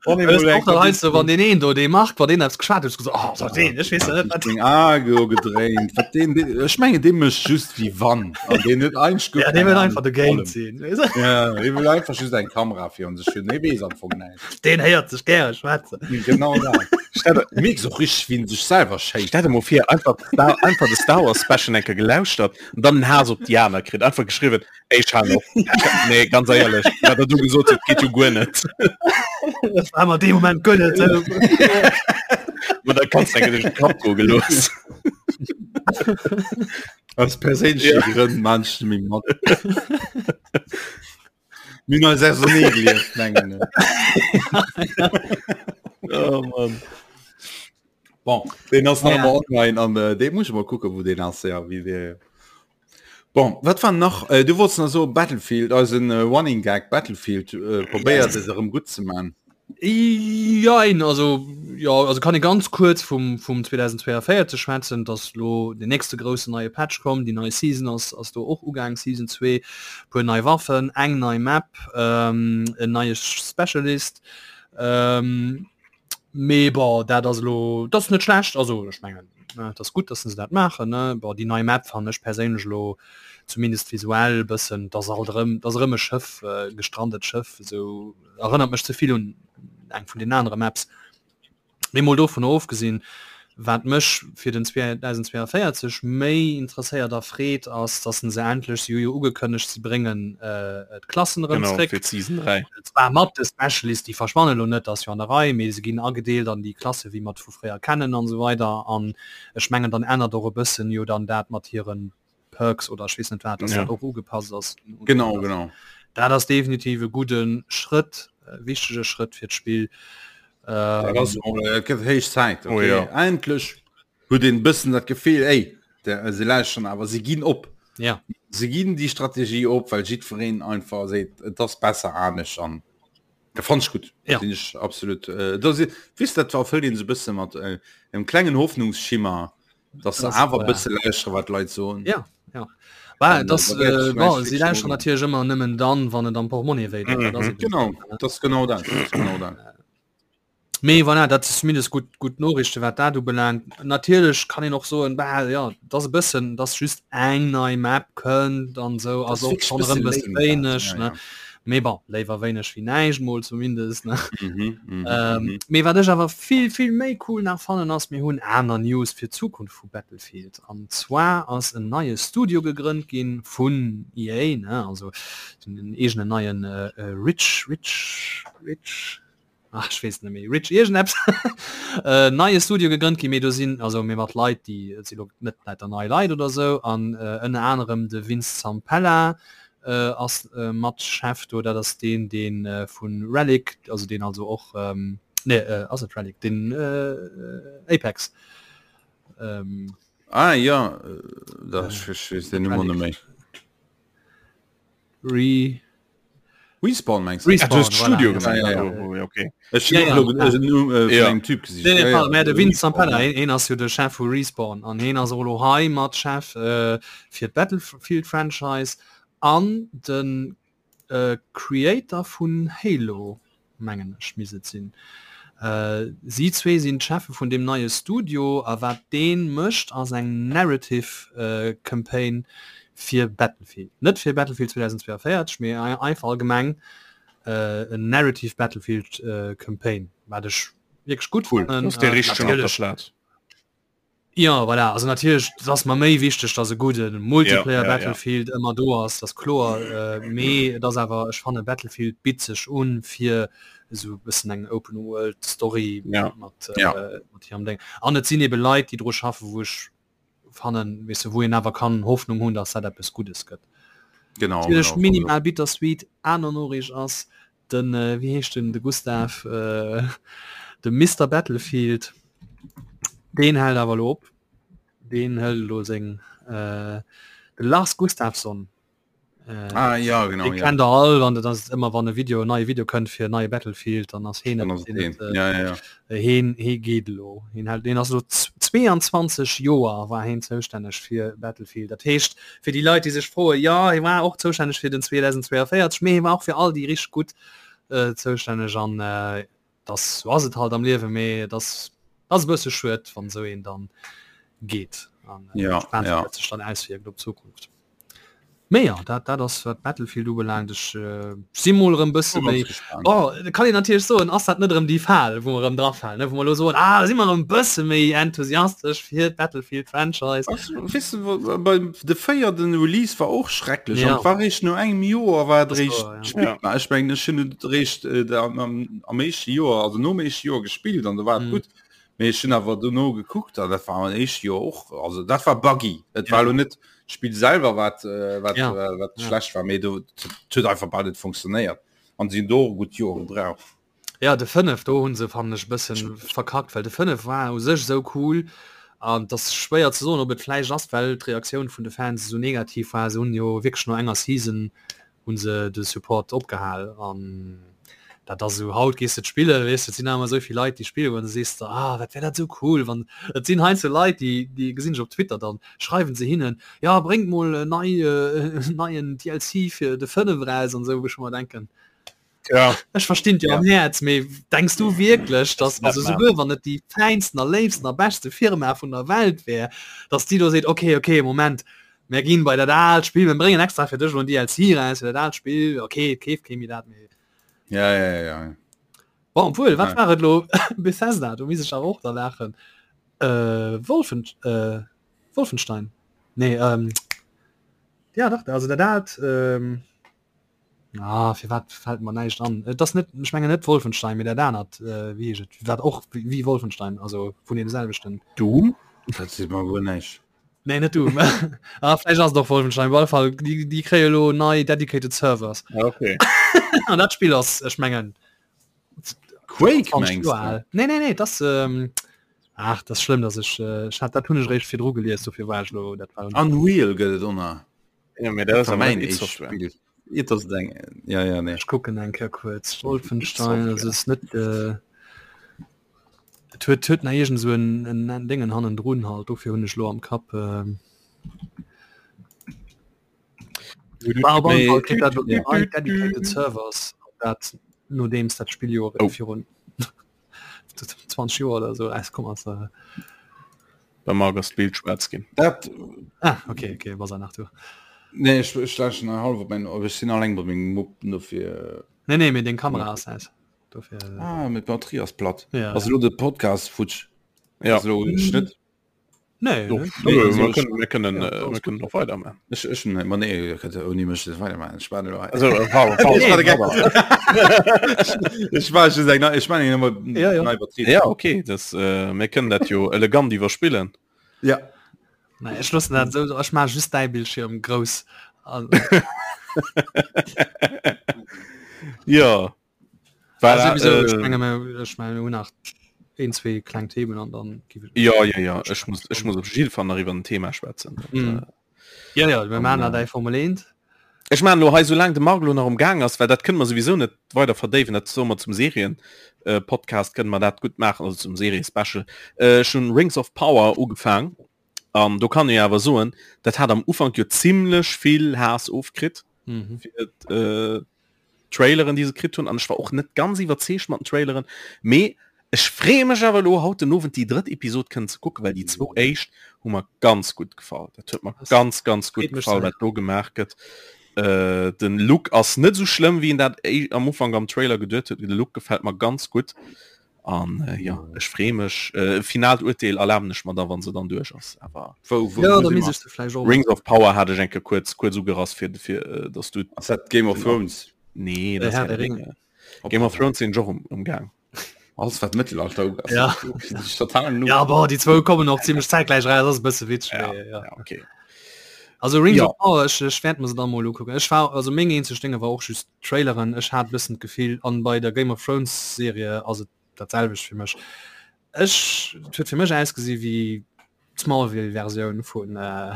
Wann Das ist auch dann heißt so, wann den een do dee macht, wann den eppes geschwat huet, so, oh, so den, ich weess net, wat Deng Ae gedréint. Wat den, den, ech menge dee mécht just wéi wann. An deen huet eigentlech guer Ja, dee keng wëll Ahnung einfach vun dogéint allem. sinn, weess du? Ja, dee wëll einfach just eng Kamera virun sech hunn. Dee weess am Fong näischt. Den héiert sech gäre schwätzen. Genau dat. Stell der, Mierks och richteg, wéi en sech selwer schéisst. stell der mol vir, einfach, Star, einfach de Star Wars Special eng Kéier gelauschtert an dann den Haass op déi aner kritt. Einfach geschriwwen, Ey, ech halen op. Nee, ganz eierlech, wat der du gesot huet, geet jo guer net. Das war mer dee Moment guer net. Ma da kannst du duerch den Kapp goe gelooss. Aus perséinleche Ja. Grënn maan ech net méi mat. Mir hunn eis ausernee gelieft, mengen ech. Oh Mann. Bon, deen ass nach Ja. ëmmer online an äh, dee muss ech mol kucken, wou deen ass, ja, wéi dee Bon, wat war nach? Äh, du wolltest nach so Battlefield, eisen äh, Running Gag Battlefield äh, probéiert es erëm gutt ze man. Jein, also ja, also kann ee ganz kuerz vum vum 2042 schwätzen, dass lo den nächste groussen neie Patch komm, déi nei Season ass ass do och ugaang, Season 2, puer nei Waffen, eng nei Map, ähm, en neie Specialist. Ähm, Mee bon, dat ass elo, dat ass net schlecht, also ech mengen, et ass gutt, datt se dat maachen, ne. Bon, déi nei Map fannen ech perséinlech elo zumindest visuell e bëssen, et ass alt erëm, et ass erëm e Schëff, e gestrandet Schëff, esou erënnert mech ze vill un eng vun den anere Maps. Mee mol dovunner ofgesinn, Wat mech fir den 2042 méi interesséiert a freet ass, dass se endlech, si hu jo ugekënnegt, si bréngen d'Klassen erëm Genau, zréck. fir d'Season 3. Zwar mat de Specialist, déi verschwannen elo net, ass jo an der Rei, mee se ginn agedeelt an déi Klasse wéi mer et vu fréier kennen an esou weider. An ech mengen dann ännert och e bëssen jo dann dat mat hiren Perks oder ech weess net wat, dass Ja. dat och ugepasst ass. Genau, genau. Dat ass definitiv e gudde Schrëtt, e wichtege Schrëtt fir d'Spill. Dat Ähm, ass och, äh, et gëtt héich Zäit, Oh okay. ja. Endlech huet een bëssen dat Gefill, ey, der, se lauschteren awer, se ginn op. ja. Se ginn déi Strategie op, well jiddwereen einfach seet, et ass besser anescht an dat fand ech gutt. Ja. Sinn ech absolut. Äh, da si, weess dat erfëllt een sou bësse mat äh, engem klengen Hoffnungsschimmer, dass se Das, awer äh, bësse lauschtere wat d'Leit soen. Ja, ja. Bah, An, äh, das, da wäert äh, ech bon, vielleicht sie wirklich lauschteren mal- natierlech ëmmer nëmmen dann, wann et am Portmonnaie wéi deet. Dat ass Mhm. eben Genau, so, ne? das ist genau dat. Das ist genau dat. Mee voilà, dat ass zumindest gutt gutt Noriichte wat dat ubelaangt. Natierlech kann een och soen, bah, ja, dat ass e bëssen, dass just eng nei Map kënnt an esou Das ass ist och wirklich schonn erëm bësse bësse lame dat. wéineg, Ja, ne? ja. Mee bon, léiwer wéineg wéi näischt mol zumindest, ne? Mhm, mhm, ähm, mhm. Mee wat ech awer vill, vill méi cool nach fannen ass, mir hunn aner News fir d'Zukunft vu Battlefield. An zwar ass en neie Studio gegrënnt ginn vun EA, ne? Also den eegenen neien äh, äh, Rich, Rich, Rich, ach, ech weess net méi, Rich iergendeppes, äh, neie Studio gegrënnt ginn, mee do sinn, also mee mat Leit, déi, et si lo net lauter nei Leit oder sou, an äh, ënner anerem de Vince Zampella, äh, ass äh, mat Chef do, dat ass deen, deen äh, vun Relic, also deen also och, ähm, nee, äh, ass et Relic, den äh, Apex. Ähm, ah ja, äh, da äh, ich weess den Numm net méi. Re Respawn mengst du? Respawn, ah, du Studio voilà, ja, ja, ja. Oh, okay. Ech ja, ja, ja. Äh, ja. Typ gesicht. Nee, nee, ja, ja. De Vince Zampella, hien ass jo de Chef vu Respawn an hien ass och lo hei mat Chef äh, fir d'Battlefield Franchise an den äh, Creator vun Halo. mengen ech misst et sinn. Si zwee sinn d'Cheffe vun deem neie Studio a wat dee mécht ass eng Narrative Campaign fir Battlefield. Net fir Battlefield 2042, mee einfach allgemeng en Narrative Battlefield Campaign, wat ech wierklech gutt fannen. Cool, dee richtegen op der Plaz. Jo, voilà, also natierlech, et ass mer méi wichteg, dass e gudde Multiplayer ja, ja, Battlefield ja. ëmmer do ass, dat ass kloer, äh, mee et ass awer, ech fanne Battlefield bitt sech un fir esou e bëssen eng Open World Story ja. mat, äh, ja. mat hirem Ding. An et sinn ebe Leit, déi dru schaffen, wou ech fannen, weess de, wou een awer kann Hoffnung hunn, dass dat eppes Guddes gëtt. Genau. Natierlech genau, minimal bittersweet, aner Noriicht ass, Den wéi heescht den de Gustav de Mister Battlefield deen hält awer lo op. Deen hëlt elo seng de Lars Gustafsson. Ah, ja, genau, dee ja. kennt der all wann dat ass ëmmer wann e Video en neie Video kënnt fir neie Battlefield dann ass heen Dann ass et heen. Ja, ja, ja. Heen hee geet elo. Heen hält deen ass elo 22 Joer war heen zoustänneg fir Battlefield. Dat heescht Fir déi Leit, déi sech froen, jo, hie war och zoustänneg fir den 2042, mee hie war och fir all déi richteg gutt zoustänneg an dass, sou ass et halt am Liewen, mee et ass, ass e bësse schued, wann esou een dann geet an ja, gespaant, ja. wéi dat sech dann auswierkt op d'Zukunft. Mee jo, dat, dat ass wat Battlefield ubelaangt. Ech äh, si mol erëm bësse Ganz méi gespannt. Oh, da kann een natierlech soen, ass dat net erëm déi Fal, wou mer erëm drafalen, ne? Wou mer elo soen, ah, da si mer erëm bësse méi enthusiastesch fir d'Battlefield Franchise. Ass, weess de, wa- bei de véierten Release war och schrecklech Ja. an war réischt no engem Joer war et Das réischt war, ja. spillbar. Ech mengen ech hunn et réischt äh, da am, am, am éischte Joer, also nom éischte Joer gespillt an da war et Mhm. gutt. Mee ech hunn awer dono gekuckt an dat war am éischte Joer och, also dat war buggy. Et war Ja. lo net d'Spill selwer wat äh, wat, Ja. äh, wat Ja. schlecht war, mee do et huet einfach bal net funktionéiert an si hunn do och gutt Joer gebraucht. Ja de 5 do hunn se fannen ech bëssen verkackt, well de 5 war u sech esou cool an et ass schwéier ze soen ob et vläicht ass well d'Reaktioun vun de Fans esou negativ war. Se hunn jo wierklech no enger Season hunn se de Support opgehal an dat ass esou haut gees de spille weess de et sinn awer esou vill Leit déi spille goen, da sees de ah dat wär dat esou cool wann et sinn heiansdo Leit déi déi gesinn ech op Twitter dann schreiwen se hinnen ja bréngt mol en nei neien DLC fir de 5 eraus an esou wou ech mer denken Ja. Ech verstinn dir Ja. am Häerz, mee denks du wierklech, dass net also maachen. souguer wann et déi fäinsten a léifsten a beschte Firma vun der Welt wär, dass déi do seet, okay, okay, Moment, mär ginn bei dat aalt Spill, mir bréngen extra fir dech elo en DLC eraus fir dat aalt Spill, okay, et keeft kee méi dat, mee Ja, ja, ja, ja. Bon, obwuel, wat Ja. war et elo? Bethesda, do misst ech awer och da laachen. Äh, Wolfen, äh, Wolfenstein? Nee, ähm, ja dach, also dat aalt, ähm, Ah, firwat fällt mer näischt an? Et ass net, ech mengen net Wolfenstein, mee dat anert, äh, wéi heescht et, wat och wéi Wolfenstein, also vun deem selwechten. Doom? Dat seet mer guer näischt. Nee, net Doom. ah, vläicht ass et och Wolfenstein. Op alle Fall, déi, déi kréie lo nei dedicated Servers. Ah, okay. An dat Spill ass, ech mengen, Quake 20 mengst Joer du? al. Nee, nee, nee, das ähm, ach, das ass schlëmm, dass ech, äh, ech hat, dat hunn ech eréischt virdru gelies, dofir war ech lo, dat war. Unreal gëtt et och nach. Ja, mee dat ass War awer mäin net id éischt Software. Spill. Et ass eng ja ja nee. Ech kucken eng Kéier kuerz. Wolfenstein, Software. also es net äh, et huet huet nach iergend esou en en en Déngen hannendrun halt, dofir hunn ech lo am Kapp. Ähm, war op alle Mee Fall kritt dat lo ja. nei dedicated Servers, dat nodeems dat Spill jo Oh. virun 20 Joer oder sou erauskomm ass. Äh. Beim Marc ass d'Bild schwaarz ginn. Dat Ah, okay, okay, was er nach du. Nee, ech, ech lauschteren hei hallef op mein, ech sinn alleng bei mengem Mupp, dofir. Nee, nee, mee deng Kamera ass aus. Dofir. Ah, mee d'Batterie ass platt. Ja. Ass elo de Podcast futsch? Ja. Ass elo Schnëtt? Nee, Doch, nee, nee, also, wir können, wir können, ja, äh, wir können noch weitermachen. Ich, ich, nee, nee, ihr könnt ohne mich nicht weitermachen. Ich war nur. Also, äh, Paul, Paul, ich war just eng, ich meine immer ja, ja. ja okay, das, äh, wir können dat jo elegant iwwerspillen. Ja. Nee, ech loossen dat esou, ech maache just däi Bildschirm grouss. Ja. Well, also, äh, ech menge mir, ech menge mir hunn nach een, zwee kleng Themen an dann gi Ja, ja, ja, ech muss, ech muss op jidde Fall nach iwwer en Thema schwätzen. Mm. Ja, ja, mir maachen nach däi Formel 1. Ech maachen elo hei, soulaang de Marc elo nach um Gaang ass, well dat kënne mer souwisou net weider verdéiwen, dat soe mer zum Serien-Podcast, kënne mer dat gutt maachen, also zum Serie-Special. Ech hunn Rings of Power ugefaang an do kann ee awer soen, dat hat am Ufank jo zimlech vill Haass ofkritt fir d'Traileren, déi se kritt hunn an ech war och net ganz iwwerzeegt mat den Traileren, mee ech freeë mech awer elo haut den Owend déi drëtt Episod kënnen ze kucken, well déi zwou éischt hu mer ganz gutt gefall. Dat huet mer ganz ganz gutt gefall, wat do gemaach gëtt. Äh, den Look ass net sou schlëmm, wéi een dat am Ufank am Trailer geduet huet. De Look gefält mer ganz gutt an äh, ja ech freeë mech. Äh, finaalt Urteel erlaben ech mer da, wann se dann duerch ass. Awer Wou, wou, ja, wou da si misst mer? ech se vläicht och Rings of Power hat ech enke kuerz kuerz ugerass fir fir äh, dass du Ass dat Game of Thrones? Nee, Äh, dat ass Herr Herr der der Ringe. Ringe. Game of Thrones sinn ech och um, um Gaang. Alles wat Mëttelalter ugeet, ass Ja. total noob. Ja, boah, déi zwou kommen och zimmlech zäitgläich eraus, ass e bësse witzeg, Ja, mee ja. ja, okay. Also Rings Ja. of Power, ech, ech wäert mer se dann mol ukucken. Ech war, also meng eenzeg Dénge war och just Traileren. Ech hat e bëssen d'Gefill, an bei der Game of Thrones Serie ass et dat selwecht fir mech. Ech, et huet fir mech ausgesi wéi d'Smallville-Versioun vun, äh,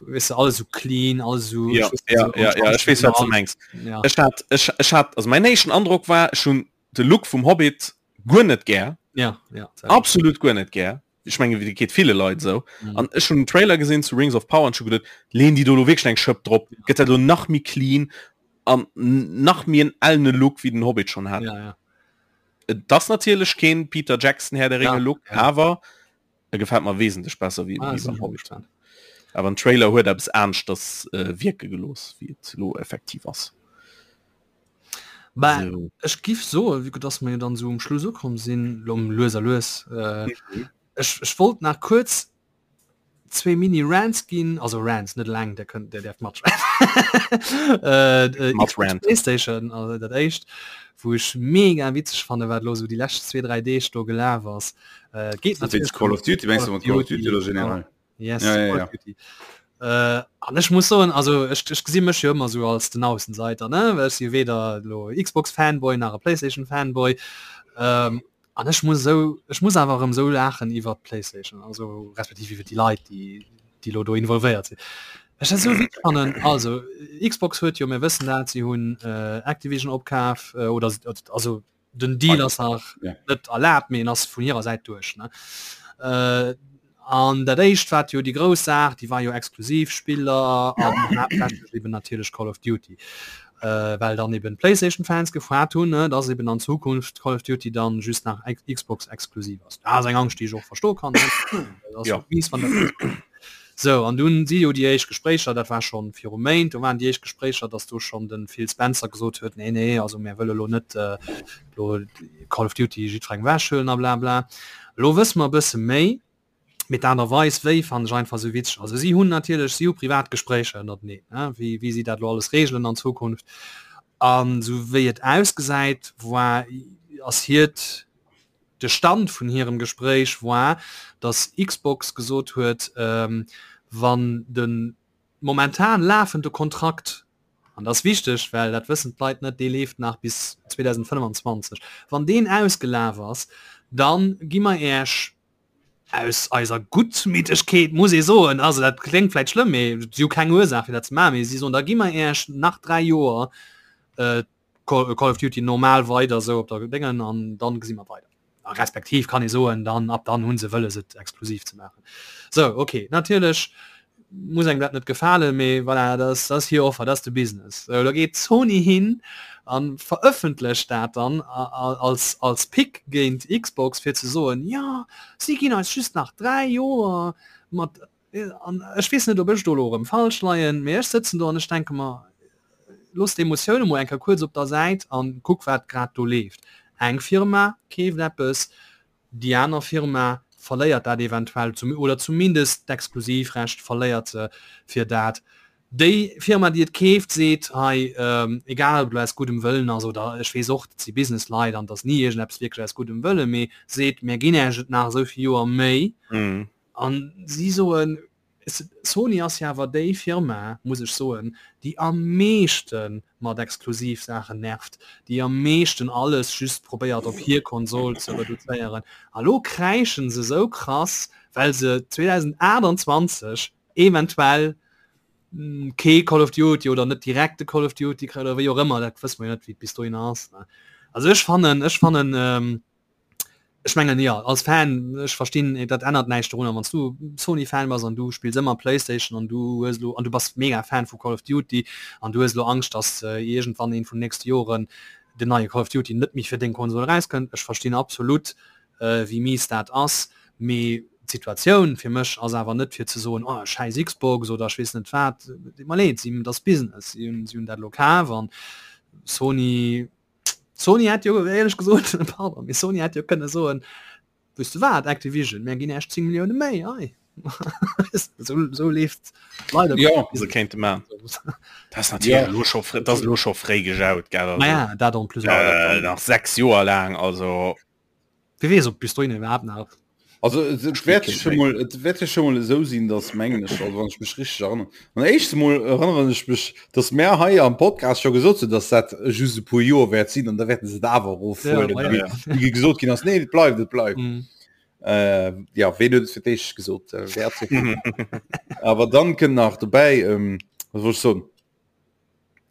weess de, alles sou clean, alles sou, Ja, ech weess net, ja, sou ja, ja, ech weess, wat du mengs. Ja. Ech hat, ech, ech hat, also mein éischten Androck war, ech hunn de Look vum Hobbit guer net gär. Ja, ja, selwecht. Absolut guer net gär. Ech menge wéi geet ville Leit esou. Mhm. An ech hunn den Trailer gesinn zu Rings of Power an ech hu geduet, leen déi do lo wierklech eng Schëpp drop, gëtt dat lo nach méi clean an nach méi en ellene Look wéi den Hobbit schonn hat. Ja, ja. Et ass natierlech keen Peter Jackson Herr der Ringe Ja, Look, ja. awer e gefält mer wesentlech besser wéi Ah, wéi sinn beim ech och Hobbit. gespannt. Awer den Trailer huet eppes aneschters äh, wierke gelooss, wéi et lo effektiv ass. Bah, So. ech giff soen, vue que dass mer jo dann esou um Schluss ukomm sinn, lo lues a lues, äh, ech, ech wollt nach kuerz zwee Mini-Rants ginn, also Rants, net eleng, der kënnt, der däerft matschwätzen. Äh, äh, Mat Xbox ranten. Playstation, also dat éischt, wou ech mega witzeg fanne wat lo sou déi lescht zwee, dräi Deeg do gelaf ass. Äh, et geet Wéinst natierlech Call of Duty, mengst du mat Call of Duty oder genau. generell? Yes, Ja, ja, Call ja. of Duty. Äh, an ech muss soen, also ech, ech gesi mech jo ëmmer sou als den Aussenseiter, ne? Well ech si weder lo Xbox-Fanboy nach e Playstation-Fanboy. Ähm, an ech muss esou, ech muss awer erëm esou laachen iwwer d'Playstation, also respektiv iwwer déi Leit, déi, déi lo do involvéiert sinn. Ech dat esou witzeg fannen. Also Xbox huet jo, mir wëssen dat, si hunn äh, Activision opkaf, äh, oder also den Deal ass nach Ja. net erlaabt, mee en ass vun hirer Säit duerch. Ne? Äh, an dat éischt wat jo déi grouss Saach, déi war jo exklusiv Spiller an haaptsächlech eben natierlech Call of Duty. Äh, well dann eben d'PlayStation-Fans gefrot hunn, ne, dass eben an Zukunft Call of Duty dann just nach Ex Xbox exklusiv ass. Dat ass eng Angscht, déi ech och verstoe kann. Ne? Dat ass Ja. jo mies, wann dat Sou, an dunn si jo déi éischt Gespréicher, dat war schonn viru Méint, do waren déi éischt Gespréicher, datt do schonn de Phil Spencer gesot huet, nee, nee, also mär wëlle lo net elo Call of Duty jiddwerengem ewechhuelen a blabla. Elo wësse mer e bësse méi, mee d'Aart a Weis wéi fannen ech einfach esou witzeg. Also si hunn natierlech, si hu privat Gespréicher ënnerteneen, ne, wéi, wéi si dat elo alles reegelen an Zukunft. An esou wéi et ausgesäit, war, ass hiert, De Stand vun hirem Gespréich war, datt Xbox gesot huet, wann de momentan lafende Kontrakt, an dat ass wichteg, well dat wëssen d'Leit net, dee leeft nach bis 2025, wann deen ausgelaf ass, da gi mer Iech aus eiser Guttmütegkeet, muss ee soen, also dat kléngt vläicht schlëmm, mee si hu keng Ursaach fir dat ze maachen, mee si soen, da gi mer Iech nach 3 Joer Call of Duty normal weider sou op der Déngen an dann gesi mer weider. A respektiv kann ee soen, dann ab dann hunn se wëlles et exklusiv ze maachen. Sou ok, natierlech muss engem dat net gefalen, mee voilà, dat ass, dat ass hir Offer, dat ass de Business. Sou da geet Sony hin a verëffentlecht dat dann als als Pick géint Xbox fir ze soen, jo si ginn eis just nach 3 Joer mat. An ech weess net, ob ech do elo erëm falsch leien, mee ech sëtzen do an ech denke mer, Looss d'Emotioune mol eng Kéier kuerz op der Säit an kuck wat grad do leeft. Eng Firma keeft eppes, déi aner Firma verléiert dat eventuell zum oder zumindest d'Exklusivrecht verléiert se fir dat. Déi Firma déi et keeft seet, hei egal ob et elo aus guddem Wëllen ass oder ech weess och, dat si Businessleit an et ass ni iergendeppes wierklech aus guddem Wëllen, mee seet, mär ginn Iech et nach esou vill Joer méi. An si soen, Sony ass jo awer déi Firma, muss ech soen, déi am meeschte mat Exklusivsaachen nervt, déi am meeschten alles just probéiert op hir Konsol ze reduzéieren. A lo kräischen se esou krass, well se 2028 eventuell kee Call of Duty oder net direkt de Call of Duty kréien oder wéi och ëmmer, dat wësse mer jo net, wéi et bis dohinner ass. Also ech fannen, ech fannen, ech mengen jo, als Fan, ech verstinn, dat ännert näischt dorunner, wann s du Sony-Fan bass an du spills ëmmer Playstation an du hues elo, an du bass mega Fan vu Call of Duty an du hues elo Angscht, datt iergendwann eent vun den nächste Joren den neie Call of Duty net méi fir deng Konsol erauskënnt. Ech verstinn absolut, wéi mies dat ass, mee d'Situatioun fir mech ass awer net fir ze soen, oh schäiss Xbox oder ech weess net wat. Deet mer leed, si, dat ass Business, si hunn, si hunn dat elo kaf an Sony, Sony hätt jo éierlech gesot, pardon, mee Sony hätt jo kënne soen, weess de wat Activision, mär ginn Iech 10 Millioune méi, hei. Esou, esou leeft leider. Jo, se kéinte man. Dat ass natierlech elo scho fréi, dat ass elo scho fréi gejaut, gell, also. Naja, dat en plus. Nach 6 Joer laang, also. Wie weess, ob bis dohin iwwerhaapt nach. Also et wäert scho mol, et wäert jo scho mol esou sinn, datt mengen ech, also wann ech mech richteg erënneren, an éischts emol erënneren ech mech, datt mär hei am Podcast scho gesot hunn, datt dat just e puer Joer wäert sinn an da wäerten se et awer erofhuelen, Ja, wéi ja. wéi gesot ginn ass, nee et bleift, et bleift. Mhm. Äh, ja, ween huet et fir d'éischt gesot? Äh, wäert se. Awer dann kënnt nach dobäi, ähm, wat wollt ech soen?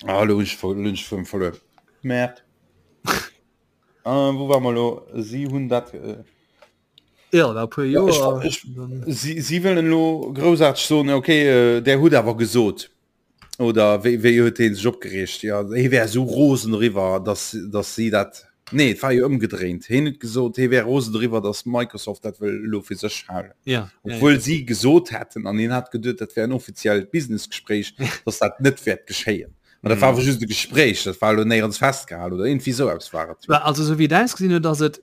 Ah, lo hunn ech ver- lo hunn ech vum verluer. Merde. Ah, wou war mer lo? Si hunn dat. Äh, Ja, da puer Ja, ech, Joer. ech, si, si wëllen lo groussaarteg soen, okay, äh, der hutt awer gesot. Oder wéi, wéi huet hee sech opgereegt? Ja, hee wär esou rosen doriwwer, dass, dass si dat. Nee, et war jo ëmgedréint. Heen huet gesot, hee wär rosen doriwwer, dass Microsoft dat wëll elo fir sech halen. Ja, ja, ja. Obwuel si gesot hätten, an hien hat geduet, dat wär en offiziellt Businessgespréich, dass dat net wäert geschéien. Mä dat war awer just e Gespréich, dat war elo néierens festgehalen oder iergendwéi esou eppes war et jo. Also esou wéi et ausgesinn huet, ass et,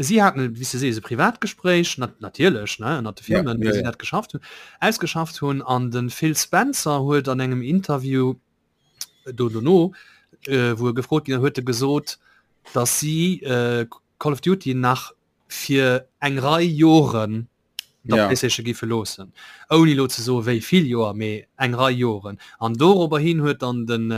si haten, wéi s de sees, e Privatgespréich, natierlech, ne, ënnert de Ja, Firmen, ja, wéi si ja. dat geschafft hunn, ausgeschafft hunn. An de Phil Spencer huet an engem Interview do dono, wou e gefrot ginn ass, huet e gesot, datt si Call of Duty nach fir eng Rei Joren der Ja. PlayStation giffe loossen. Ouni lo ze soe wéi vill Joer, mee eng Rei Joren. An dorobber hin huet dann den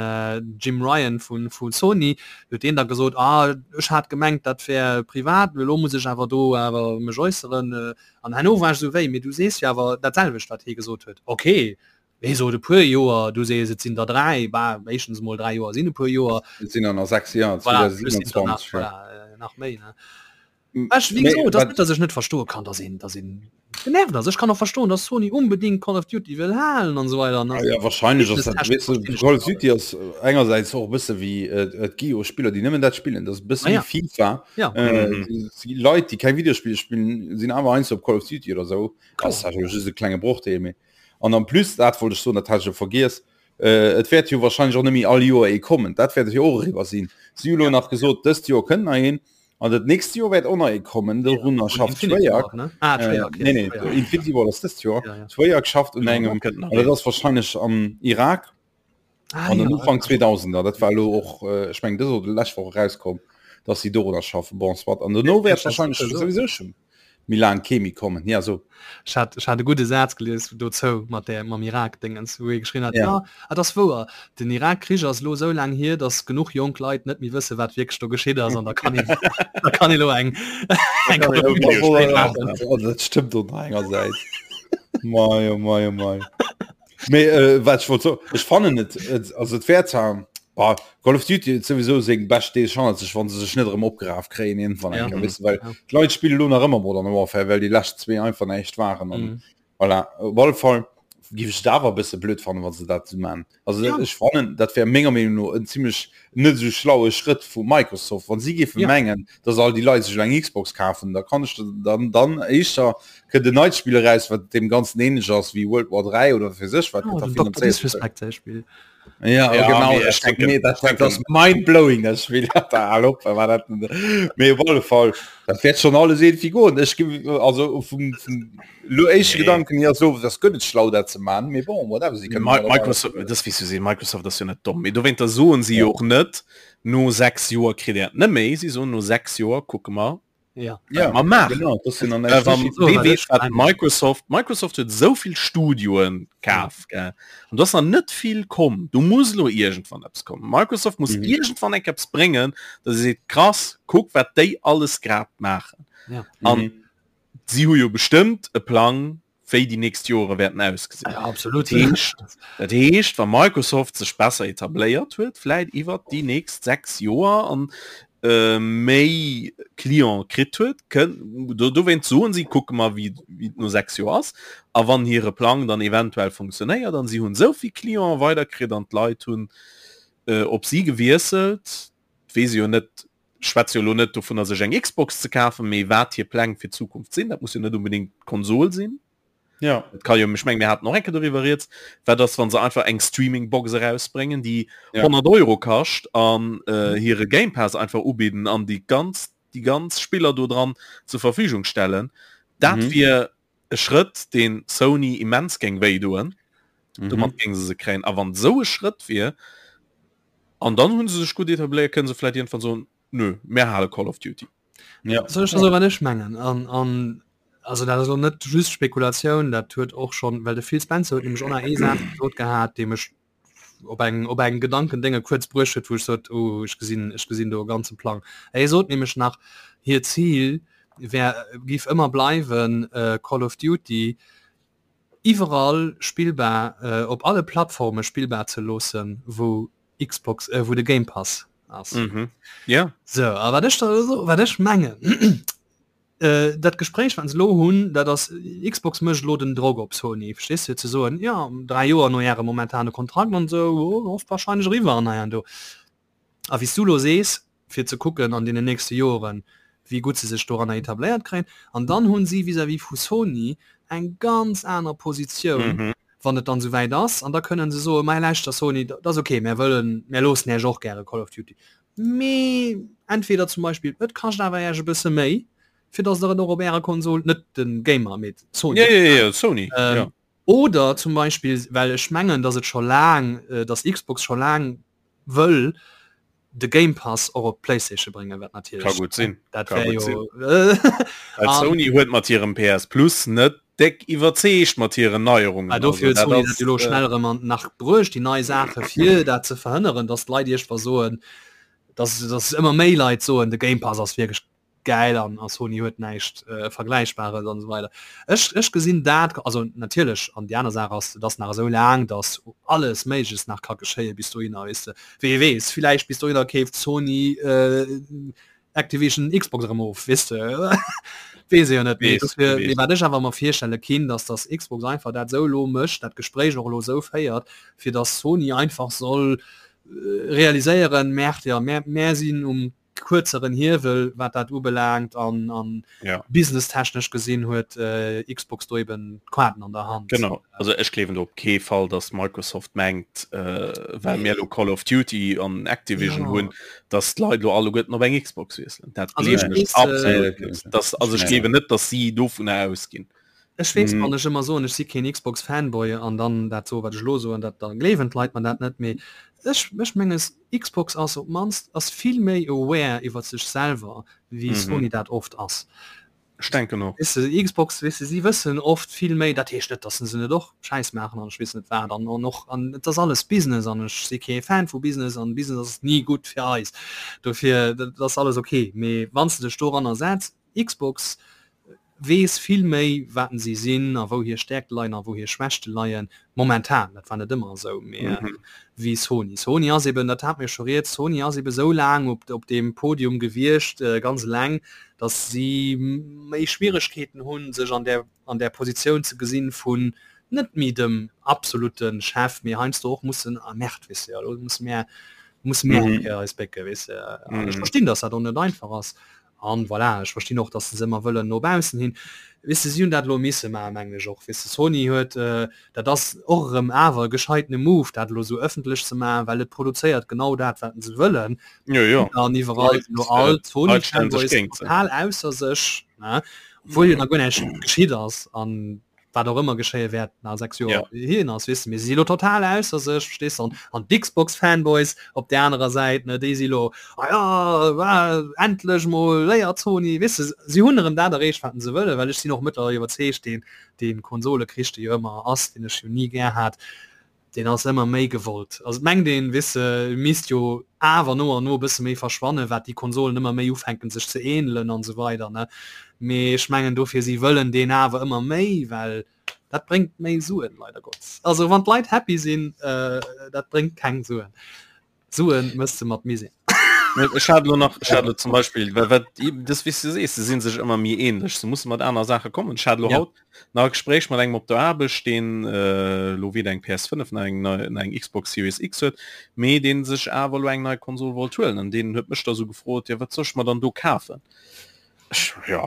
Jim Ryan vu vu Sony, huet deen da gesot, ah ech hat gemengt dat wär privat, mee elo muss ech awer do awer mech äusseren. An herno war ech esou, wéi, mee du sees jo awer dat selwecht wat hie gesot huet. Okay, hie sot e puer Joer, du sees et sinn der 3, bah éischtens emol 3 Joer sinn e puer Joer. Et sinn der nach 6 Joer, Voilà, plus sinn der nach, 2027, ja. voilà, nach méi, ne. Ech, wéi gesot, dat ass net, datt ech net verstoe kann, datt een, datt een genervt ass. Ech kann och verstoen, datt Sony unbedingt Call of Duty wëll halen an esou weider. Ah, ja, wahrscheinlech ass dat, weess du, Call of Duty ass engersäits och e bësse wéi, et gi jo Spiller, déi nëmmen dat spillen, dat ass e bësse Ah, ja. wéi FIFA. Ja. Äh, si Leit, déi keng Videospiller spillen, sinn awer heiansdo op Call of Duty oder esou. Kloer. Ass jo just e klenge Brochdeel, mee an en plus, dat wollt ech soen, dat hat ech jo vergiess, äh, et wäert jo wahrscheinlech och net méi all Joer ee kommen. Dat wäert jo och eriwwer sinn. Si hu lo nach gesot, dëst Joer kënnt nach een. An dat nächst Joer wäert och nach ee kommen, dorunner schafft Treyarch. Ah, Äh, Treyarch, nee, nee, ja. Infinity Ward ass dëst Joer. Ja, ja. Treyarch schafft un engem, kënnt nach an dat ass wahrscheinlech am Irak Ah, an den ja. Ufank 2000er. Dat war elo och, äh, ech meng dës oder lescht Woch erauskomm, dass si dorunner schaffen. Bon, soit. An dono wäert das wahrscheinlech so. souwisou schon méi laang kee méi kommen. Ja, so. Ech hat, ech hat e gudde Saz gelies dozou mat där, mam Irak-Dingens, wou ee geschriwwen hat, Ja. ja, et ass wouer, den Irak-Krich ass elo esou laang hier, datt genuch jonk Leit net méi wësse wat wierklech do geschitt ass an da kann een, da kann ee lo eng, eng kann een Call of Duty Spill maachen. Oh, dat stëmmt och nach engersäits. Mei, oh mei, oh mei. Mee äh, wat ech wollt soen, ech fannen et, et also et wär zwar bah, Call of Duty huet souwisou seng bescht Deeg hannert sech, wann se sech net erëm opgeraf kréien iergendwann eng Ja. Kéier, weess de, well Ja. d'Leit spille lo nach ëmmer Modern Warfare, well déi lescht zwee einfach näischt waren an Mhm. voilà. Op alle Fall. giff ech et awer e bësse blöd fannen, wa se dat esou man. Also ja. ech fannen, dat wär menger Meenung no en zimmlech net esou schlaue Schrëtt vu Microsoft, wann si géife ja. mengen, dass all déi Leit sech eng Xbox kafen, da kann ech dann dann éischter kënnt en neit Spill eraus, wat deem ganzen ähnlech ass wéi World War 3 oder fir sech wat oh, Disrespect Spiel. Ja, ja, genau nee, ich denke, nee, das, das, das mind blowing das Spiel dat war dat mee op alle Fall dat wäert schon alles irgendwie goen ech also vum, vum lo éischte nee. Gedanken hier so das gëtt et schlau dat ze man mee bon whatever sie können Microsoft das wie du sinn Microsoft das jo net domm mee dowéinter soen sie ja. och net no 6 Joer kritt er net méi sie so no 6 Joer kucke mer ja. Ja, ma maachen. Genau, das sind dann Äh, wann, wee weess, wat Microsoft Microsoft huet souvill Studioen kaf gell an do ass nach net vill komm do muss lo iergendwann eppes kommen Microsoft muss mhm. iergendwann eng eppes bréngen dass se seet krass kuck wat déi alles grad maachen ja. an mhm. si hu jo bestëmmt e Plang wéi déi nächst Jore wäerten ausgesinn. Ja, absolut. Dat heescht, dat heescht, wa Microsoft sech besser etabléiert huet, vläit iwwert déi nächst 6 Joer an äh, méi Client kritt huet, kënn, do, dowéint soen si, kucke mer, wéi, wéi et no 6 Joer ass. A wann hire Plang dann eventuell funktionéiert an si hunn esou vill Client weiderkritt an d'Leit hunn äh, op si gewiesselt, weess ech jo net, schwätze jo elo net dovunner sech eng Xbox ze kafen, mee wat hir Pläng fir d'Zukunft sinn, dat muss jo net unbedingt d'Konsol sinn. Ja. Et kann jo, ech meng mir haten och eng Kéier doriwwer rieds, wat ass wann se einfach eng Streaming-Box erausbréngen, déi ja. 100 Euro kascht an äh, hire Game Pass einfach ubidden an déi ganz déi ganz Spiller do dran zur Verfügung stellen. Dat mhm. wier e Schrëtt, deen Sony immens géing wéi doen. Mhm. Domat géing se se kréien. A wann esou e Schrëtt wier, an dann hunn se sech gutt etabléiert, kënne se vläit iergendwann soen, nö, mär hale Call of Duty. Ja. Soll ech da soen, wat ech mengen? An, an also dat ass elo net just Spekulatioun, dat huet och schonn, well de Phil Spencer huet nämlech och nach ee Saz gesot gehat, dee mech op eng op eng Gedankendénge kuerz bruecht huet, wou ech sot, oh ech gesinn ech gesinn do e ganze Plang. Hie sot nämlech nach, hiert Zil wär géif ëmmer bleiwen, Call of Duty iwwerall spillbar, op alle Plattforme spillbar ze loossen, wou Xbox wou de Game Pass ass. Mhm. Ja. Sou, a wat ech da wat ech mengen, Dat Gespréich wat se elo hunn, dat ass, Xbox mécht elo den Drock op Sony, verstees de, fir ze soen, jo, 3 Joer no Ärem momentane Kontrakt an esou, oh, wahrscheinlech eriwwer an hei an do. A wéi s du elo sees, fir ze kucken an deenen nächste Joren, wéi gutt se sech doranner etabléiert kréien. An dann hu si vis-à-vis vu Sony eng ganz aner Positioun, wann et dann esouwäit ass. An da kënnen se soen, Mei lauschter Sony, dat ass okay, mär wëllen, mär loossen Iech och gäre Call of Duty, Mee entweder zum Beispill et kascht awer Äech e bësse méi, fir datt der et och op Ärer Konsol, net de Gamer, mee Sony, ja, ja, ja, Sony, ähm, ja. Oder zum Beispill, well ech mengen, datt et scho laang, datt Xbox scho laang wëll de Game Pass och op d'PlayStation bréngen, wat natierlech Ka gutt sinn. dat Ka wär gutt jo sinn. Well Sony huet mat hirem PS Plus net déck iwwerzeegt mat hiren Neierungen. Ah, dofir huet Also dat Sony dat ass, jo elo schnell erëm an nach bruecht, déi nei Saache fir dat ze verhënneren, datt d'Leit iergendwa soen, datt datt ëmmer méi Leit soen, de Game Pass ass wierklech gäil an a Sony huet näischt Vergläichbares an esou weider. Ech ech gesinn dat, also natierlech, an déi aner Saach ass, et ass nach esou laang, datt alles Méigleches nach ka geschéie bis dohinner, weess de. Wee weess, villäicht bis dohinner keeft Sony Activision Xbox erëm of, weess de, weess ee jo net. Mee dofir, mee wat ech awer mer virstelle kinn, datt datt Xbox einfach dat esou elo mécht, dat Gespréich och elo esou féiert, fir datt Sony einfach soll realiséieren, Merde, jo, mär mär sinn um kuerzeren Hiewel wat dat ubelaangt an an ja. businesstechnesch gesinn huet äh, Xbox do eben d'Quaten an der Hand. Genau also ech gleewen do op kee Fall, dass Microsoft mengt äh, well mir lo Call of Duty an Activision ja. hunn, dass d'Leit lo alleguerten op eng Xbox wiesselen. Dat also ech gleewen ech weess, äh, absolut net. Das, also ech gleewen net, dass si dovunner ausginn. Ech weess, wann ech ëmmer soen, ech si keen Xbox Fanboy an dann dat soe wat ech elo soen, dat da gleewen d'Leit mer dat net, mee ech ech menge Xbox ass op d'mannst ass vill méi aware iwwer sech selwer wéi Sony dat oft ass. Ech denken och. Weess de, Xbox, weess de, si wëssen oft vill méi, dat heescht net, datt se net och Schäiss maachen an ech weess net wat an an och an et ass alles Business an ech si kee Fan vu Business an Business ass ni gutt fir eis, dofir dat ass alles ok, mee wann s de dech doranner setz, Xbox weess vill méi waten si sinn a wou hir Stäerkte leien a wou hir Schwächte leien, momentan, dat war net ëmmer esou, mee wéi Sony. Sony ass eben, dat hate mir scho rieds, Sony ass eben esou laang op op deem Podium gewiescht, ganz eleng, datt si méi Schwieregkeeten hunn, sech an där an där Positioun ze gesinn vun. net méi dem absolute Chef, mee heiansdo och mussen, ah merde, weess de, elo musse mir musse mir eng Kéier eis bécke, weess de. An ech verstinn, datt dat och net einfach ass. An voilà, ech verstinn och, datt se se ëmmer wëllen no baussen hin. Weess de, si hunn dat elo misse maachen, mengen ech och. Weess de, Sony huet, dat ass och erëm awer e gescheitene Move, dat elo esou ëffentlech ze maachen, well et produzéiert genau dat, wat se wëllen. Jo, jo. An iwwerall sinn elo all d'Sony-Fanboys total ausser sech, ne, obwuel jo nach guer näischt geschitt ass. An wat och ëmmer geschéie wäert na 6 Joer ja. hien ass wis mir si lo total ausser sech verstehst an an d'Xbox Fanboys op der anerer Säit ne déi si lo ah ja ah, endlech mol léiert Sony wis si hunn erëm dat erreecht wat se wëlle well ech sinn och mëttlerweil iwwerzeegt deen deen Konsolekrich dee jo ëmmer ass deen ech jo ni gär hat Deen ass ëmmer méi gewollt. Also et mengt een, weess de, misst jo awer no an no e bësse méi verschwannen, wat déi Konsolen ëmmer méi ufänken sech ze ähnelen an esou weider, ne. Mee ech mengen dofir, si wëllen deen awer ëmmer méi, well dat bréngt méi Suen, leider Gottes. Also wann d'Leit happy sinn, dat bréngt keng Suen. Suen mëss de mat Misär. Ech hat lo nach, ech hat lo zum Beispill, well wat das wéi s du sees, se sinn sech ëmmer méi ähnlech, se musse mat aner Saache kommen. Ech hat lo Ja. haut nach e Gespréich mat engem op der Aarbecht, deen äh, lo weder eng PS5 nach eng nei, nach eng Xbox Series X huet, mee deen sech awer lo eng nei Konsol wollt huelen an deen huet mech da sou gefrot, jo wat soll ech mer dann do kafen? Ech, jo,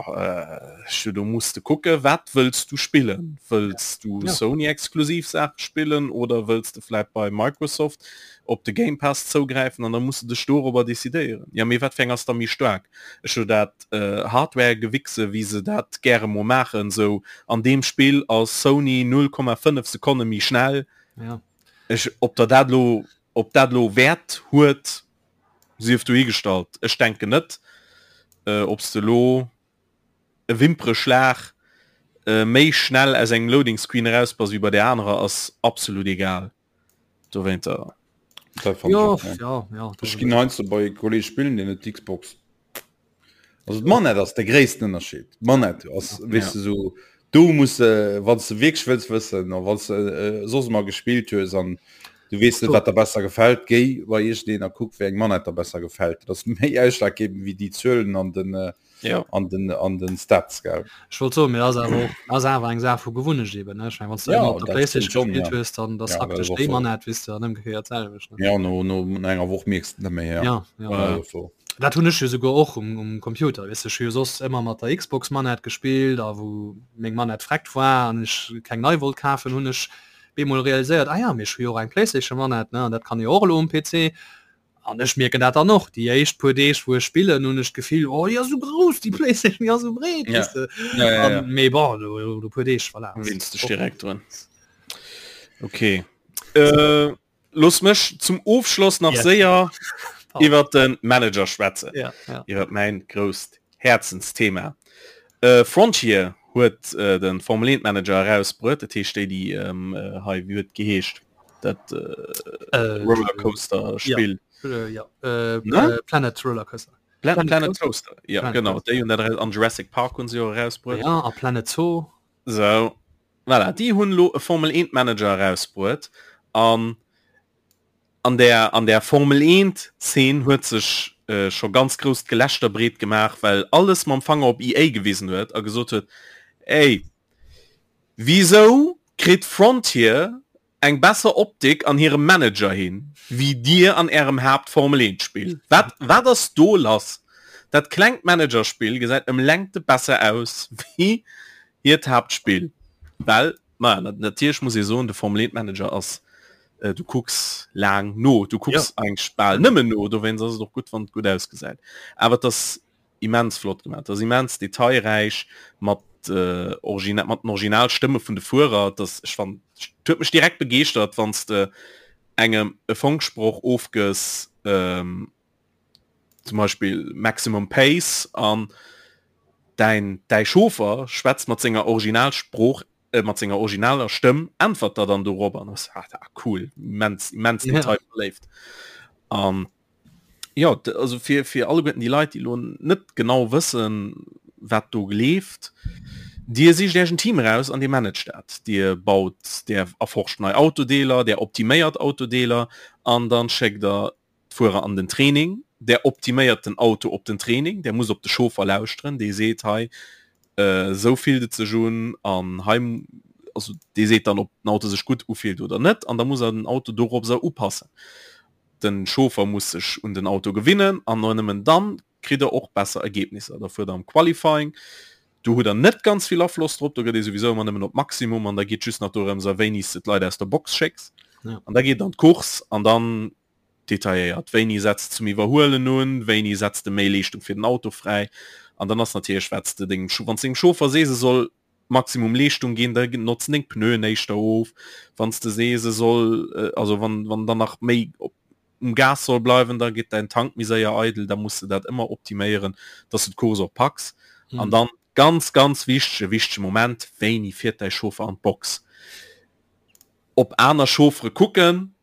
ech, do muss de kucke wat wëlls du spillen? Wëlls du Ja. Sony exklusiv Saache spillen oder wëlls de vläit bei Microsoft op de Game Pass zougräifen an da muss de dech dorobber decidéieren. Ja mee wat fir eng ass da méi staark? Ech hu dat Hardware-Gewichse wéi se dat gäre mol maachen, sou an deem Spill ass Sony 0,5 Sekonne méi schnell. Ja. Ech, ob der dat lo, ob dat lo Wäert huet, Sief dohigestallt, ech denken net. Ob s de elo e Wimpereschlag méi schnell aus engem Loading Screen eraus bass wéi bei där anerer ass absolut egal. Dowéinter. Dat fand Jo, ech och, ja, ja, Ech ginn heiansdo bei e Kolleg spillen, deen huet d'Xbox. Also d'Manette ass de gréissten Ënnerscheed. D'Manette ass, weess de, sou do muss de, wann s de wierklech wëlls wëssen a wann s de soss ëmmer gespillt hues an du weess net, wat der besser gefält, géi bei iergendeen a kuck, wéi eng Manette der besser gefält. Dat ass méi ausschlaggebend wéi déi Zuelen an den Ja. an den an den Stats, gell. Ech wollt soen, mee ass awer och ass awer eng Saach vu Gewunnecht eben, ne? Ech meng, wann s du Ja, ëmmer op der dat Playstation stimmt schon, gespillt ja. hues, dann da Ja, dat sackt ass dech och déi so. Manette, weess de, an ëmgekéiert d'selwecht, ne? Ja, no no enger Woch mierks de net méi, ja. Ja, ja. Ja, dat ass Dat hunn ech jo souguer och um, um Computer, weess de, ech hu jo soss ëmmer mat der Xbox Manette gespillt a wou meng Manette vreckt war an ech keng nei wollt kafen, hunn ech bemol realiséiert, ah ja, mee ech hu jo och eng Playstation Manette, ne, an dat kann e jo och elo um PC. An ech mierken dat dann och, déi éischt puer Deeg wou ech spillen, hunn ech d'Gefill, oh déi ass esou grouss déi Playstation, déi ass esou breet, Ja. weess de. Ja, ja, ja. An, mee bon, no, no puer Deeg, voilà. Winns dech direkt drun. Okay. Äh, Looss mech zum Ofschloss nach Yes. séier iwwer den Manager schwätzen. Ja, ja. Iwwer mäin grousst Häerzensthema. Äh, Frontier huet äh, den Formel 1 Manager erausbruet, dat heescht déi déi ähm, äh, hei wéi huet geheescht dat äh, Äh, Rollercoaster Spill. äh, ja. Äh, Ne? äh, Planet Rollercoaster. Planet, Planet Planet Coaster. Ja, Planet genau. Coaster. Déi hunn dat eraus an Jurassic Park hunn se jo erausbruet. Ja, a Planet Zoo. So, voilà, déi hunn elo e Formel 1 Manager erausbruet an an der an der Formel 1 Szene huet sech äh, scho ganz grousst Gelächter breet gemaach, well alles mam Fanger op EA gewisen huet a gesot huet, ey, wisou kritt Frontier eng besser Optik an hirem Manager hin, wéi dir an ärem Haapt Formel 1 Spill. Wat wat ass do lass? Dat klengt Managerspill gesäit ëm Längte besser aus wéi hiert Haaptspill. Well, maja, natierlech muss ee soen, de Formel 1 Manager ass, du kucks laang no, du kucks eigentlech bal nëmmen no, dowéinst ass et och gutt wann et gutt ausgesäit. Awer et ass immens flott gemaach, ass immens detailräich mat äh, Origina mat den Originalstëmme vun de Fuerer, das ech fand huet mech direkt begeeschtert, wann s de engem e Funksproch ofgëss, ähm, zum Beispill Maximum Pace an däin däi Chauffer schwätzt mat senger Originalsprooch äh, mat senger originaler Stëmm äntwert der dann dorop an ass ah, cool immens immens Ja. detailverléift an Jo, also fir, fir alleguerten déi Leit, déi elo net genau wëssen, wat do gleeft, Dir sicht Iech en Team eraus an Dir managt dat. Dir baut, Dir erforscht nei Autodeeler, Dir optiméiert Autodeeler an dann schéckt Der d'Fuerer an den Training. Der optiméiert den Auto op den Training, Der musst op de Chauffer lauschteren, dee seet, hei esou fillt et sech un an hei. also dee seet dann ob den Auto sech gutt ufillt oder net an da muss er den Auto doropser upassen. Den Chauffer muss sech un den Auto gewinnen an no nëmmen dann kritt der och besser Ergebnisser. Da fuert der am Qualifying, do hutt der net ganz vill Afloss drop, do gëtt ee souwisou ëmmer nëmmen op Maximum an da geet just nach dorëms a wéini s de d'Leit aus der Box schécks. Ja. An da geet an d'Course an dann detailléiert, wéini setz de zum Iwwerhuelen un, wéini setz de méi Leeschtung fir den Auto fräi an dann ass natierlech wat s de dengem, wann s dengem Chauffer sees e soll Maximum Leeschtung ginn, da notzen deng Pneuen éischter of, wann s de sees e soll, also wann wann dann nach méi op um Gas soll bleiwen, da geet däin Tank méi séier eidel, da muss de dat ëmmer optiméieren, dass du d'Course och packs. Mhm. An dann ganz ganz wichtege wichtege Moment, wéini fiert däi Chauffer an d'Box? Op aner Chauffere kucken,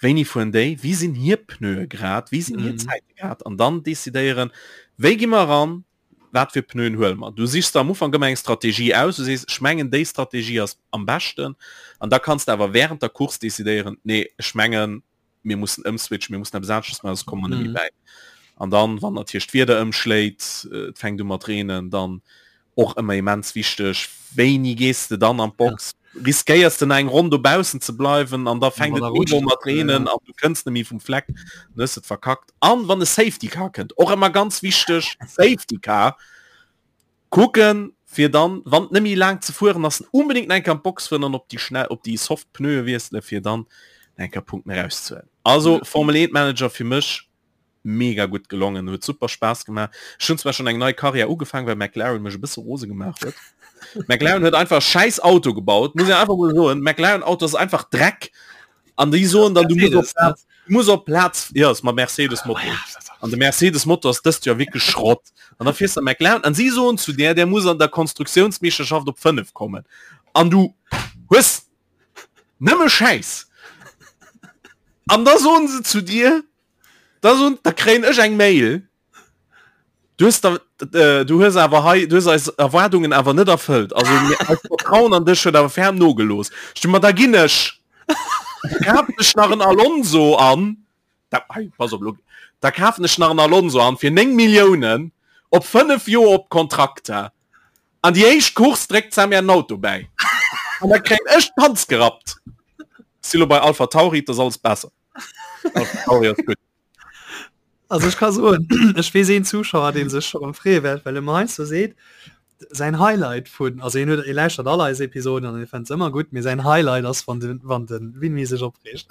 wéini fueren déi, wéi sinn hir Pneue grad, wéi sinn hir mhm. Zäite grad an dann decidéieren, wéi gi mer ran, wat fir Pneuen huele mer. Du sichs der am Ufank ëmmer eng Strategie aus, du sees, ech mengen déi Strategie ass am beschten an da kanns de awer während der Course decidéieren, nee ech mengen mir mussen ëmswitchen, mir mussen eppes aneschters maachen, soss komme mer net méi bäi. An dann, wann natierlech d'Wieder ëmschléit, et fänkt u mat reenen, dann och ëmmer immens wichteg, wéini gees de dann an d'Box? Riskéiers de nach eng Ronn dobaussen ze bleiwen an da fänkt et mega u mat reenen an du kënns net méi vum Fleck, dann hues de et verkackt. An wann e Safety Car kënnt, och ëmmer ganz wichteg, Safety Car kucken, fir dann, wann et net méi laang ze fueren ass, unbedéngt nach eng Kéier an d'Box fueren an op déi schnell, op déi soft Pneue wiesselen, fir dann nach eng Kéier Punkten erauszehuelen. Also Formel 1 Manager fir mech mega gutt gelongen, huet super Spaass gemaach. Ech hunn zwar schon eng nei Karriär ugefaangen, well McLaren mech e bësse rose gemaach huet. McLaren huet einfach scheiß Auto gebaut, muss ich einfach mal soen. McLaren Auto ass einfach Dreck. An déi soen dann, du muss op Platz, du muss op Platz, ja, ass mat Mercedes Motor. An de Mercedes Motor ass dëst Joer wierklech Schrott. An da fiers de McLaren an si soen zu där, der muss an der Konstruktiounsmeeschterschaft op 5 kommen. An du hues nëmme Schäiss. An da soen se zu dir, Da so, da kréien ech eng Mail. Du hues da, äh, du hues awer hei, du hues eis Erwaardungen awer net erfëllt. Also mir, eist Vertrauen an dech huet awer ferm nogelooss. Ech ma da ginn ech. Da kafen ech nach en Alonso an. Da, hei, pass op, lo. Da kafen ech nach en Alonso an fir 9 Milliounen op 5 Joer op Kontrakt. An déi éischt Course dréckt Sam mir en Auto bäi. An da kréien ech d'Panz gerappt. Si lo bei Alpha Tauri, 't ass alles besser. Also ech ka soen, ech weess een Zuschauer, dee sech scho rëm freeë wäert, well e mer heiansdo seet, säin Highlight vun, also hien huet, hie lauschtert all eis Episoden an hie fënnt se ëmmer gutt, mee säin Highlight ass, wann de, wann de Winmi sech opreegt.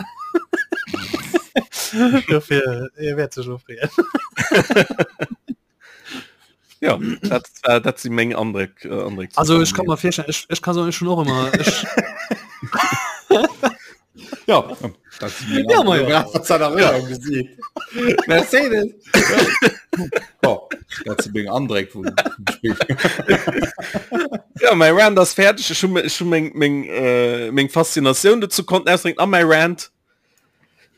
Dofir, hie wäert sech elo freeën. Ja, dat, äh, dat si meng Andréck. Äh, Andréck Also ech kann mer virstellen, ech, ech kann soen, ech hunn och ëmmer, ech, Ja, dat si meng Ja, ma ja. Andréck. Wat seiner Röhrung gesinn. Mercedes. Oh, dat si meng Andréck vum Spill. Ja, mäi Rant ass fäerdeg. Ech hu ech hu meng, meng, äh, meng Faszinatioun dozou konnten ausdrécken a mäi Rant.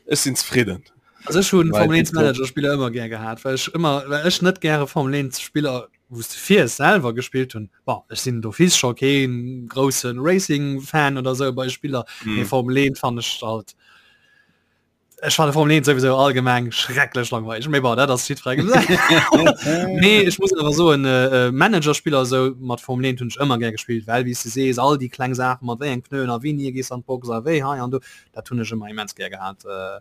Ech sinn zefridden. Also ech hunn Formel 1 Manager Spiller ëmmer gär gehat, well ech ëmmer well ech net gäre Formel 1 Spiller wou s de fiers selwer gespillt hunn. Bon ech sinn d'office scho keen grousse Racing Fan oder sou bei Spiller, mm. mee Formel 1 fannen ech halt ech fanne Formel 1 sowieso allgemeng schrecklech langweilig. Mee bon dat ass jiddwerengem säin. Nee ech muss awer soen äh, äh, Managerspiller sou mat Formel 1 hunn ech ëmmer gär gespillt, well wéi s de sees all déi kleng Saachen mat wéi eng Pneuen a wéini gees an d'Box a wéi hei an do dat hunn ech ëmmer immens gär gehat äh,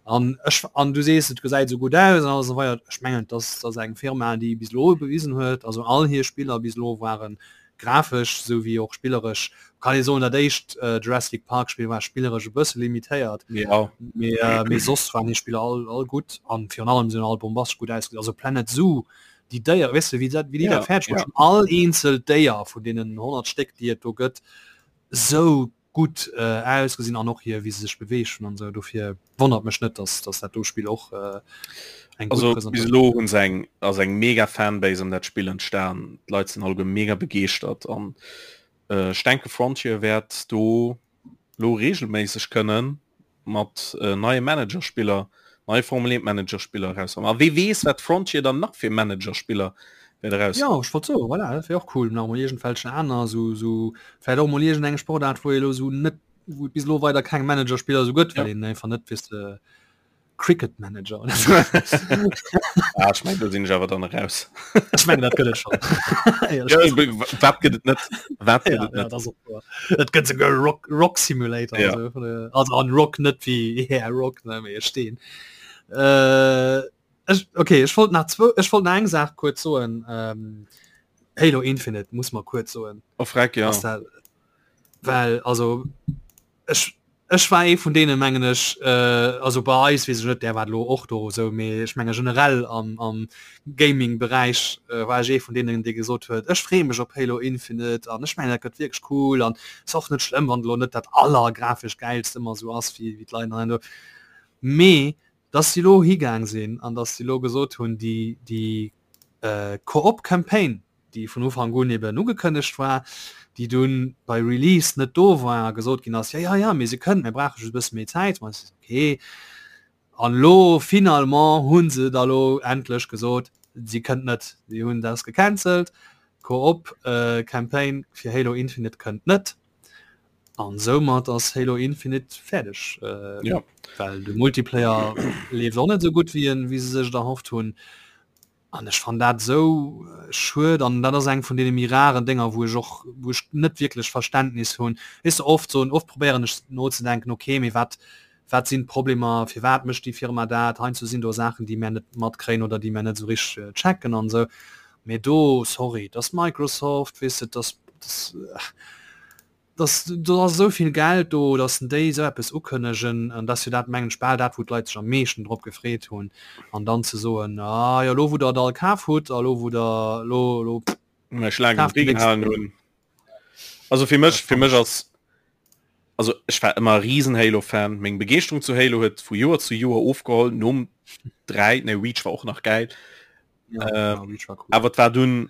an ech an du sees et gesäit sou gutt aus an alles esou weider ech mengen dass ass eng Firma déi bis elo bewisen huet also all hir Spiller bis elo waren grafesch sou wéi och spilleresch kann ee soen dat éischt äh, Jurassic Park Spill war spilleresch e bësse limitéiert ja. mee äh, mee soss waren hir Spiller all all gutt an virun allem sinn all bombastesch gutt ausgesinn also Planet Zoo déi Déier weess de wéi dat wéi déi Ja, dat fäerdeg ja. bruecht hunn all eenzel Déier vun deenen 100 Stéck déi et do gëtt sou gutt ausgesinn an och hier wéi se sech beweegt hunn an esou dofir wonnert mech net dass dass dat do Spill och eng gutt Also bis Presentatioun elo hunn se eng ass eng mega Fanbase ëm dat Spill entstan. D'Leit sinn alleguer mega begeeschtert an ech denke Frontier wäert do lo regelméisseg kënnen mat neie Managerspiller, neie Formel 1 Managerspiller erauskommen. A wee weess wat Frontier dann nach fir Managerspiller wäert eraus. Jo, ech wollt soen, voilà, dat wär och cool, nach emol iergendwelchen aner sou, sou vläicht och emol iergendeng Sportaart, wou ee elo sou net, wou et bis elo weider keng Managerspiller sou gëtt, well Ja. een einfach net, weess de. Cricket Manager oder so. ah, ech meng, do sinn ech awer dann eraus. Ech mengen dat gëtt et schon. Ja, wat gëtt et net? Wat gëtt et net? Et gëtt souguer Rock, Rock Simulator. Ja. Also, also an Rock net wéi yeah, Rock ne mee Steen. Äh, ech, okay, ech wollt nach zwo, ech wollt nach eng Saach kuerz soen. Ähm, Halo Infinite muss man kuerz soen. Oh, freck, ja. Dat, well also ech ech war ee vun deene mengen ech äh, also bei eis weess ech net, där war lo och do esou, mee ech menge generell am am Gaming-Beräich äh, war ech ee vun deenen dee gesot huet, ech freeë mech op Halo Infinite an ech mengen dat gëtt wierklech cool an ass och net schlëmm wann elo net dat allergrafesch gäilst ëmmer esou ass wéi wéi d'Leit an do. Mee dass si lo higaang sinn an dass si lo gesot hunn déi déi äh, Koop-Campaign déi vun Ufank un eben ugekënnegt war, déi dunn bei Release net do war a gesot ginn ass, jo, jo, jo, mee se kënnt, mir brauche just e bësse méi Zäit. Ma se okay. An elo finalement hu se da lo endlech gesot, si kënnt net. Si hunn dat gecancelt, d'Koop Campaign fir Halo Infinite kënnt net. An soumat ass Halo Infinite fäerdeg. Ja. Well de Multiplayer leeft och net esou gutt, wéi en, wéi se sech et erhofft hunn. An ech fannen dat esou schued an dat ass eng vun deene méi raren Dénger, wou ech och, wou ech net wierklech Verständnis hunn. Weess de, oft soen, oft probéieren ech nozedenken, okay, mee wat, wat sinn d'Problemer, firwat mécht déi Firma dat? Heiansdo sinn do Saachen, déi mär net matkréien oder déi mär net esou richteg checken an esou. Mee do, sorry, et ass Microsoft, weess de, et ass, et ass, dass do ass esou vill Geld do, dass déi esou eppes ukënnegen, an dass jo dat mengen ech bal dat wou d'Leit sech am meeschten drop gefreet hunn, an dann ze soen, ah jo elo wou der et all kaf hutt a lo wou der elo elo Mech laang kaaft den déi Ree nächst. gehalen hunn. Also fir mech fir mech ass also ech war ëmmer e riesen Halo Fan, meng Begeeschterung zu Halo huet vu Joer zu Joer ofgeholl, nom 3, nee Reach war och nach gäil, Ja, äh, ja, Reach war cool. awer et war dunn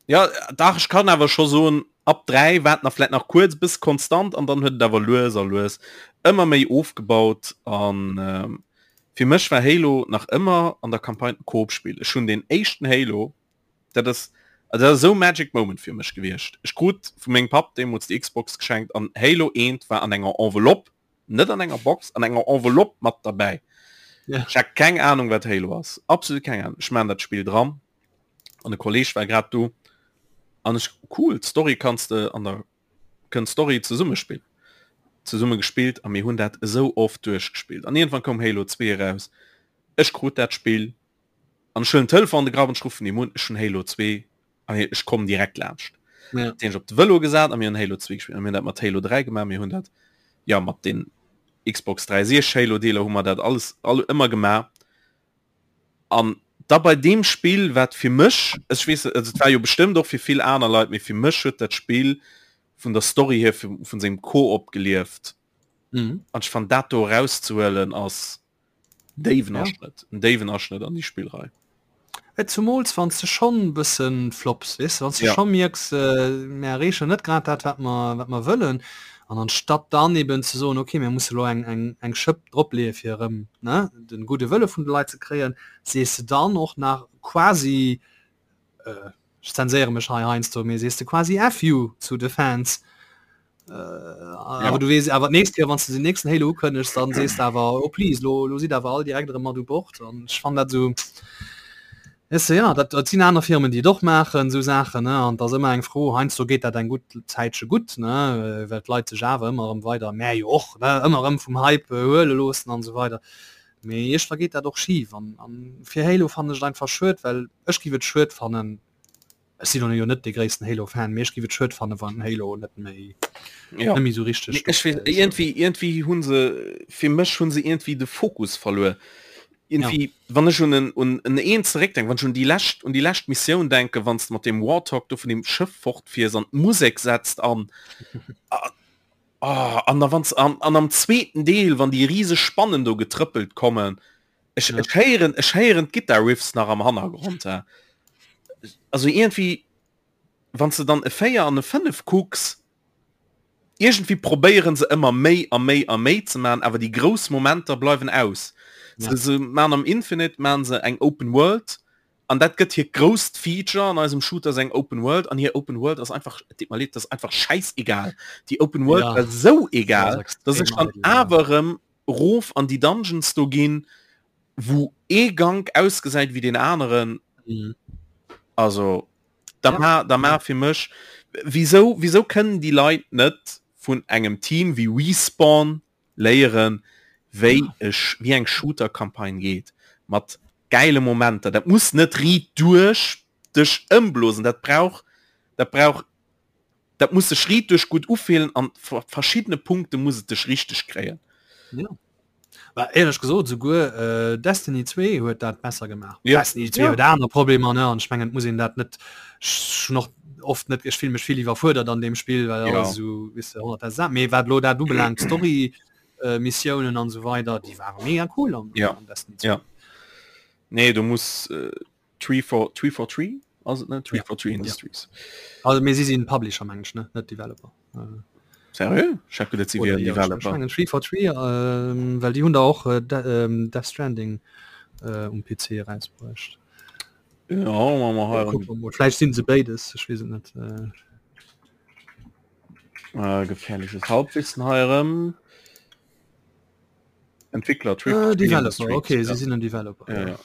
Ja dach ech kann awer scho soen ab 3 war et nach vläit nach kuerz bis konstant an dann huet et awer lues a lues ëmmer méi ofgebaut an ähm, fir mech war Halo nach ëmmer an der Campagne e Koop-Spill. Ech hunn den éischten Halo, dat ass also dat ass esou Magic Moment fir mech gewiescht. Ech krut vu mengem Papp deemools déi Xbox geschenkt an Halo 1 war an enger Enveloppe, net an enger Box, an enger Enveloppe mat derbäi. Ja. Ech hat keng Ahnung wat Halo ass, absolut keng Ahnung. Ech maan dat Spill dran an e Kolleg war grad do an ech cool d'Story kanns de an der kënnt Story zesumme spillen zesumme gespillt a mir hunn dat esou oft duerchgespillt an iergendwann koum Halo 2 eraus ech krut dat Spill an ech huelen den Telefon an de Grapp an ech ruffen him un ech hunn Halo 2 an ech kommen direkt laanscht ja. den ech op de Vëlo gesat a mir hunn Halo 2 gespillt an mir hunn dat mat Halo 3 gemaach mir hunn dat ja mat den Xbox 360 Halo Deeler hu mer dat alles all ëmmer gemaach An da bei deem Spill, wat fir mech, ech weess net, also et war jo bestëmmt och fir vill aner Leit, mee fir mech huet dat Spill vun der Story hier, vun sengem Koop gelieft. Mhm. An ech fannen dat do erauszehuelen ass déiwen Ja. Aschnëtt, en déiwen Aschnëtt an déi Spillrei. Et zumools wann s de schonn e bëssen flops, weess de, wann s de Ja. scho mierks, mir erreechen net grad dat wat mer wat mer wëllen, an anstatt dann eben ze soen, okay mir musse lo eng eng eng Schëpp dropleeë fir erëm, ne, de gudde Wëlle vun de Leit ze kréien, sees de dann och nach quasi, ech zenséiere mech hei heiansdo, mee sees de quasi F you zu de Fans. Äh, Ja. awer du weess awer d'nächst Kéier, wann s de den nächsten Halo ukënnegs, dann sees de awer, oh please, lo, lo sidd awer all direkt erëm mat u Bord. An ech fannen dat esou, weess de, ja, dat, dat sinn aner Firmen, déi et och maachen, esou Saachen, ne, an et ass ëmmer eng Fro, heiansdo geet dat eng gutt Zäitche gutt, ne, well d'Leit sech awer ëmmer erëm weider, mär jo och, ne, ëmmer erëm vum Hype huele loossen an esou weider. Mee iergendwa geet dat och schif. An, an fir Halo fannen ech et einfach schued, well ech giff et schued fannen, Ech sinn jo net de gréissten Halo Fan, mee ech giff et schued fannen wann Halo net méi ja. net méi sou richteg Ech weess iergendwéi iergendwéi hunn se fir mech hunn se iergendwéi de Fokus verluer. Iergendwéi ja. wann ech un en un en eent zeréckdenken, wann ech un déi lescht un déi lescht Missioun denken, wann s de mat deem Warthog do vun deem Schëff fortfiers an d'Musek setzt an ah, an da wann s an an am zweeten Deel, wann déi riseg Spannen do getrëppelt kommen, Ech, ja. ech héieren ech héieren d'Guitar Riffs nach am Hannergrond. Ja. Also irgendwie wann du dann e 4 an e 5 kucks, irgendwie probéieren se ëmmer méi a méi a méi ze man, awer déi grouss Momenter bleiwen aus. Ja. Se, se man am Infinite man se eng Open World an dat gëtt hir grousst Feature an eisem Shooter ass eng Open World an hir Open World ass einfach, et deet mer leed, dat ass einfach schäiss egal. Déi Open World ja. war sou egal, Das dass ech extrem dann eidel, ja. awer erëm rof an déi Dungeons do ginn. Wou ee Gank ausgesäit wéi deen aneren. Mhm. Also da Ja. ma, da ma fir mech wieso wieso kënnen déi Leit net vun engem Team wéi Respawn léieren wéi ech wéi eng Shooter-Campagne geet mat geile Momenter. Dat muss net riit duerch dech ëmblosen, dat brauch dat brauch dat muss sech riit duerch gutt ufillen an verschiddene Punkte muss et dech richteg kréien. Ja. War éierlech gesot souguer äh, Destiny 2 huet dat besser gemaach. Ja. Destiny 2 Ja. huet aner Problemer ne an ech mengen et muss een dat net schon och oft net ech fill mech vill iwwerfuerdert an dem Spill well Ja. alles esou wis de 100 Sa mee wat lo dat ubelaangt Story äh, Missiounen an sou weider déi ware mega cool an, Ja. an Destiny 2. Ja. Nee, du muss äh, 343 ass et net? 343 Ja. Industries. Also mee si sinn Publisher meng ech ne net Developer. Äh. Seriö? Ech hat geduet si Oder wieren jo, ech Developer. mengen 343 ähm, well déi hunn der och äh, De ähm, Death Stranding äh, um PC erausbruecht. Ja, ma mer hei Kucke mer mol. Vläicht sinn se béides, ech weess et net. Äh, äh, gefährliches Halbwissen hei erëm. Entwickler äh, 343 Developer, Industries. okay, ja. si sinn en Developer. Ja, ja.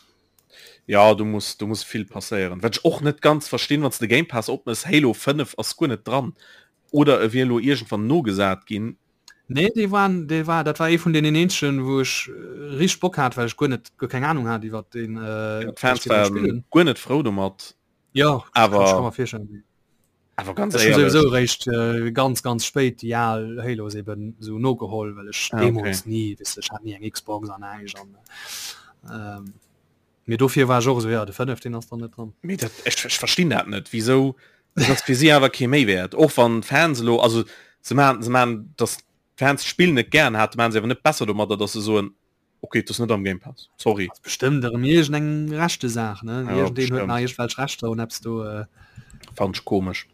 Ja, du muss du muss vill passéieren. Wat ech och net ganz verstinn, wann s de Game Pass opmëss, Halo 5 ass guer net dran. Oder e wier elo iergendwann nogesat ginn. Nee, dee war, dee war, dat war ee vun deenen eenzegen, wou ech äh, richteg Bock hat, well ech guer net, guer keng Ahnung hat iwwer den äh, Ja, d'Fans dass die den waren spillen. guer net frou domat. Ja, Awer- kann ich mir virstellen. Awer ganz Ech hun éierlech. sowieso réischt äh, ganz ganz spéit déi al Halos eben sou nogeholl, well ech Ah, okay. deemools ni, weess de, ech hat ni eng Xbox an näischt an ähm, mee dofir war ech och esou, ja de 5 deen ass dann net dran. Mee dat, ech, ech verstinn dat net, wieso dat ass fir si awer kee Méiwäert. Och wann d'Fans elo, also se man, se man, dass d'Fans d'Spill net gären haten, man se awer net besser domadder, dass se soen, okay, dat ass net am Game Pass, sorry. Ass bestëmmt erëm iergend eng Rechtesaach, ne? Ja, Iergendeen huet bestimmt. nach iergendwelch Rechter un eppes do. Äh. Fand ech komesch.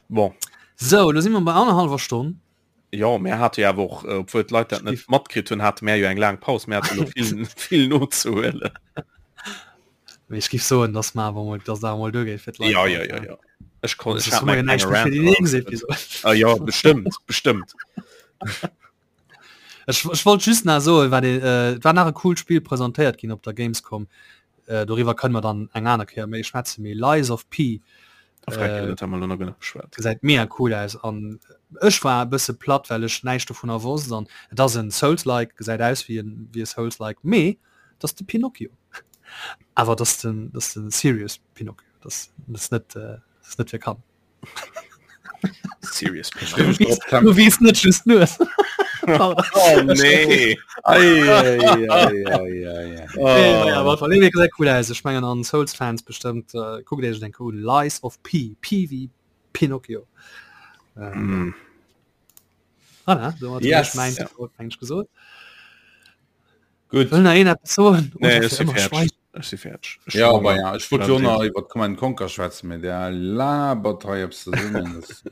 Bon. Sou, lo si mer bei annerhallwer Stonn. Jo, mär hate jo awer och, äh, obwuel d'Leit dat net matkritt hunn, hate mär jo eng laang Paus, mär hate lo vill, vill nozehuelen. Mee ech giff soen, dass mer awer mol, dass et awer mol duergeet fir d'Leit. Ja, ja, ja, ja. Ech kon, ech Soss hat hu mer mäi jo näischt klenge méi fir déi Rant nächst erausgekritt. Episod. Ah jo, bestëmmt, bestëmmt. Ech, ech wollt just nach soen, wat ee, äh, et war nach e coolt Spill presentéiert ginn op der Gamescom. Äh, doriwwer kënne mer dann eng aner Kéier méi schwätzen, mee Lies of P Äh, dat haben wir noch genug beschwert. gesäit mega cool aus an ech war e bësse platt, well ech näischt dovunner wosst an et ass en Souls-like, gesäit aus wéi en wéi e Souls-like, mee et ass de Pinocchio. Awer et ass den, et ass den serious Pinocchio, et ass, et ass net, äh, et ass net fir Kanner. Serious Du wies net just nur. Oh nee. Ei, ei, ei, ei, ei, ei. Oh. Ja, aber nee, gesäit cool aus. Ech mengen an Souls Fans bestëmmt äh, kuckt Iech den un Lies of P P wie Pinocchio. Ähm, Mm. Voilà, domat hunn Yes. ech mäin Ja. mengt gesot. Gutt. Wëll nach een eppes soen? Nee, Oder ech fir si ëmmer fäerdeg. schweigen? Ech si fäerdeg. Ech Ja, hu aber Honger. ja, ech wollt jo nach iwwer Command Conquer schwätzen, mee der labert hei eppes zesummen. Das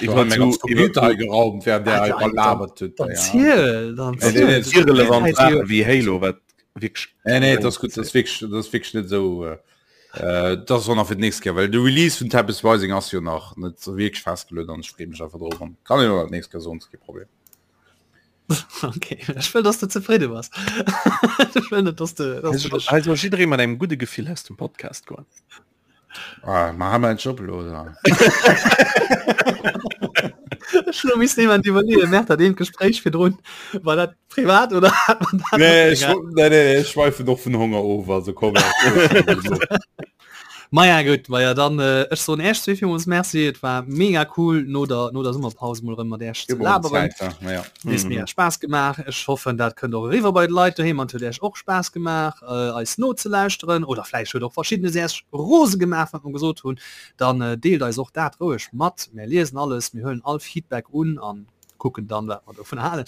Iwwer mein ganz zu, iwwer Computer hei geraumt, während der Ah, hei labert huet. Dann Ja. ziel, dann Nee, nee, ziel. nee, irrelevant Hey, Sachen wie Halo, wat wierklech Nee, nee, das ist gut, das ist wirklich, das ist wirklich net sou. Äh, äh, das ass och nach fir d'nächst Kéier, well de Release vun Tempest Rising ass jo nach net sou wierklech festgeluet an ech freeë mech einfach drop an kann een och nach d'nächst Kéier soen, ass kee Problem. Okay, ech wëll, dass du zefridde bass. Ech wëll net, dass du, dass du dech Also jidderee mat engem gudde Gefill aus dem Podcast goen. Ah, ma ha mer en Job elo, oder? Ech elo misst niemand iwwerleeën, merkt dat eent Gespréich virdrun, war dat privat oder hat man dat Nee, net ech, nee, nee, nee, ech schweifen och vun Honger of, also komm. Maja gutt, maja dann äh, ech soen Äech zwee villmools Merci, et war mega cool no der no der Summerpaus mol erëm mat Äech ze laberen. Ja. Huet mega Spaass gemaach. Ech hoffen dat kënnt och eriwwer bei de Leit doheem an et huet Äech och Spaass gemaach äh, eis nozelauschteren oder vläicht huet och verschiddenes Äech rose gemaach wat mer gesot hunn. Dann äh, deelt eis och dat roueg mat. Mär liesen alles, mir huelen all Feedback un an kucken dann wat mer dovun halen.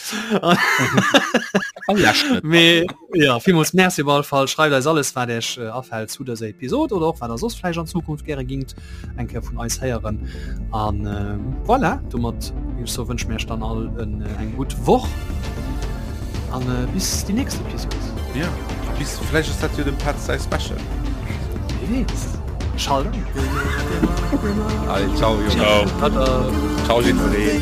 Mee ja, villmools Merci op alle Fall. Schreift eis alles wat Iech äh, afält zu dëser Episod oder och wat der soss vläicht an Zukunft gäre gingt eng Kéier vun eis héieren. An äh, voilà, domat géif ech soen, wënsche mir Iech dann all en, äh, eng gutt Woch an äh, bis déi nächst Episod. Ja, bis vläicht ass dat jo dem Petz säi Special. Wie weess. Schalt an. Allez, ciao, Jungs. Ciao. Tada. Ciao, jiddweree.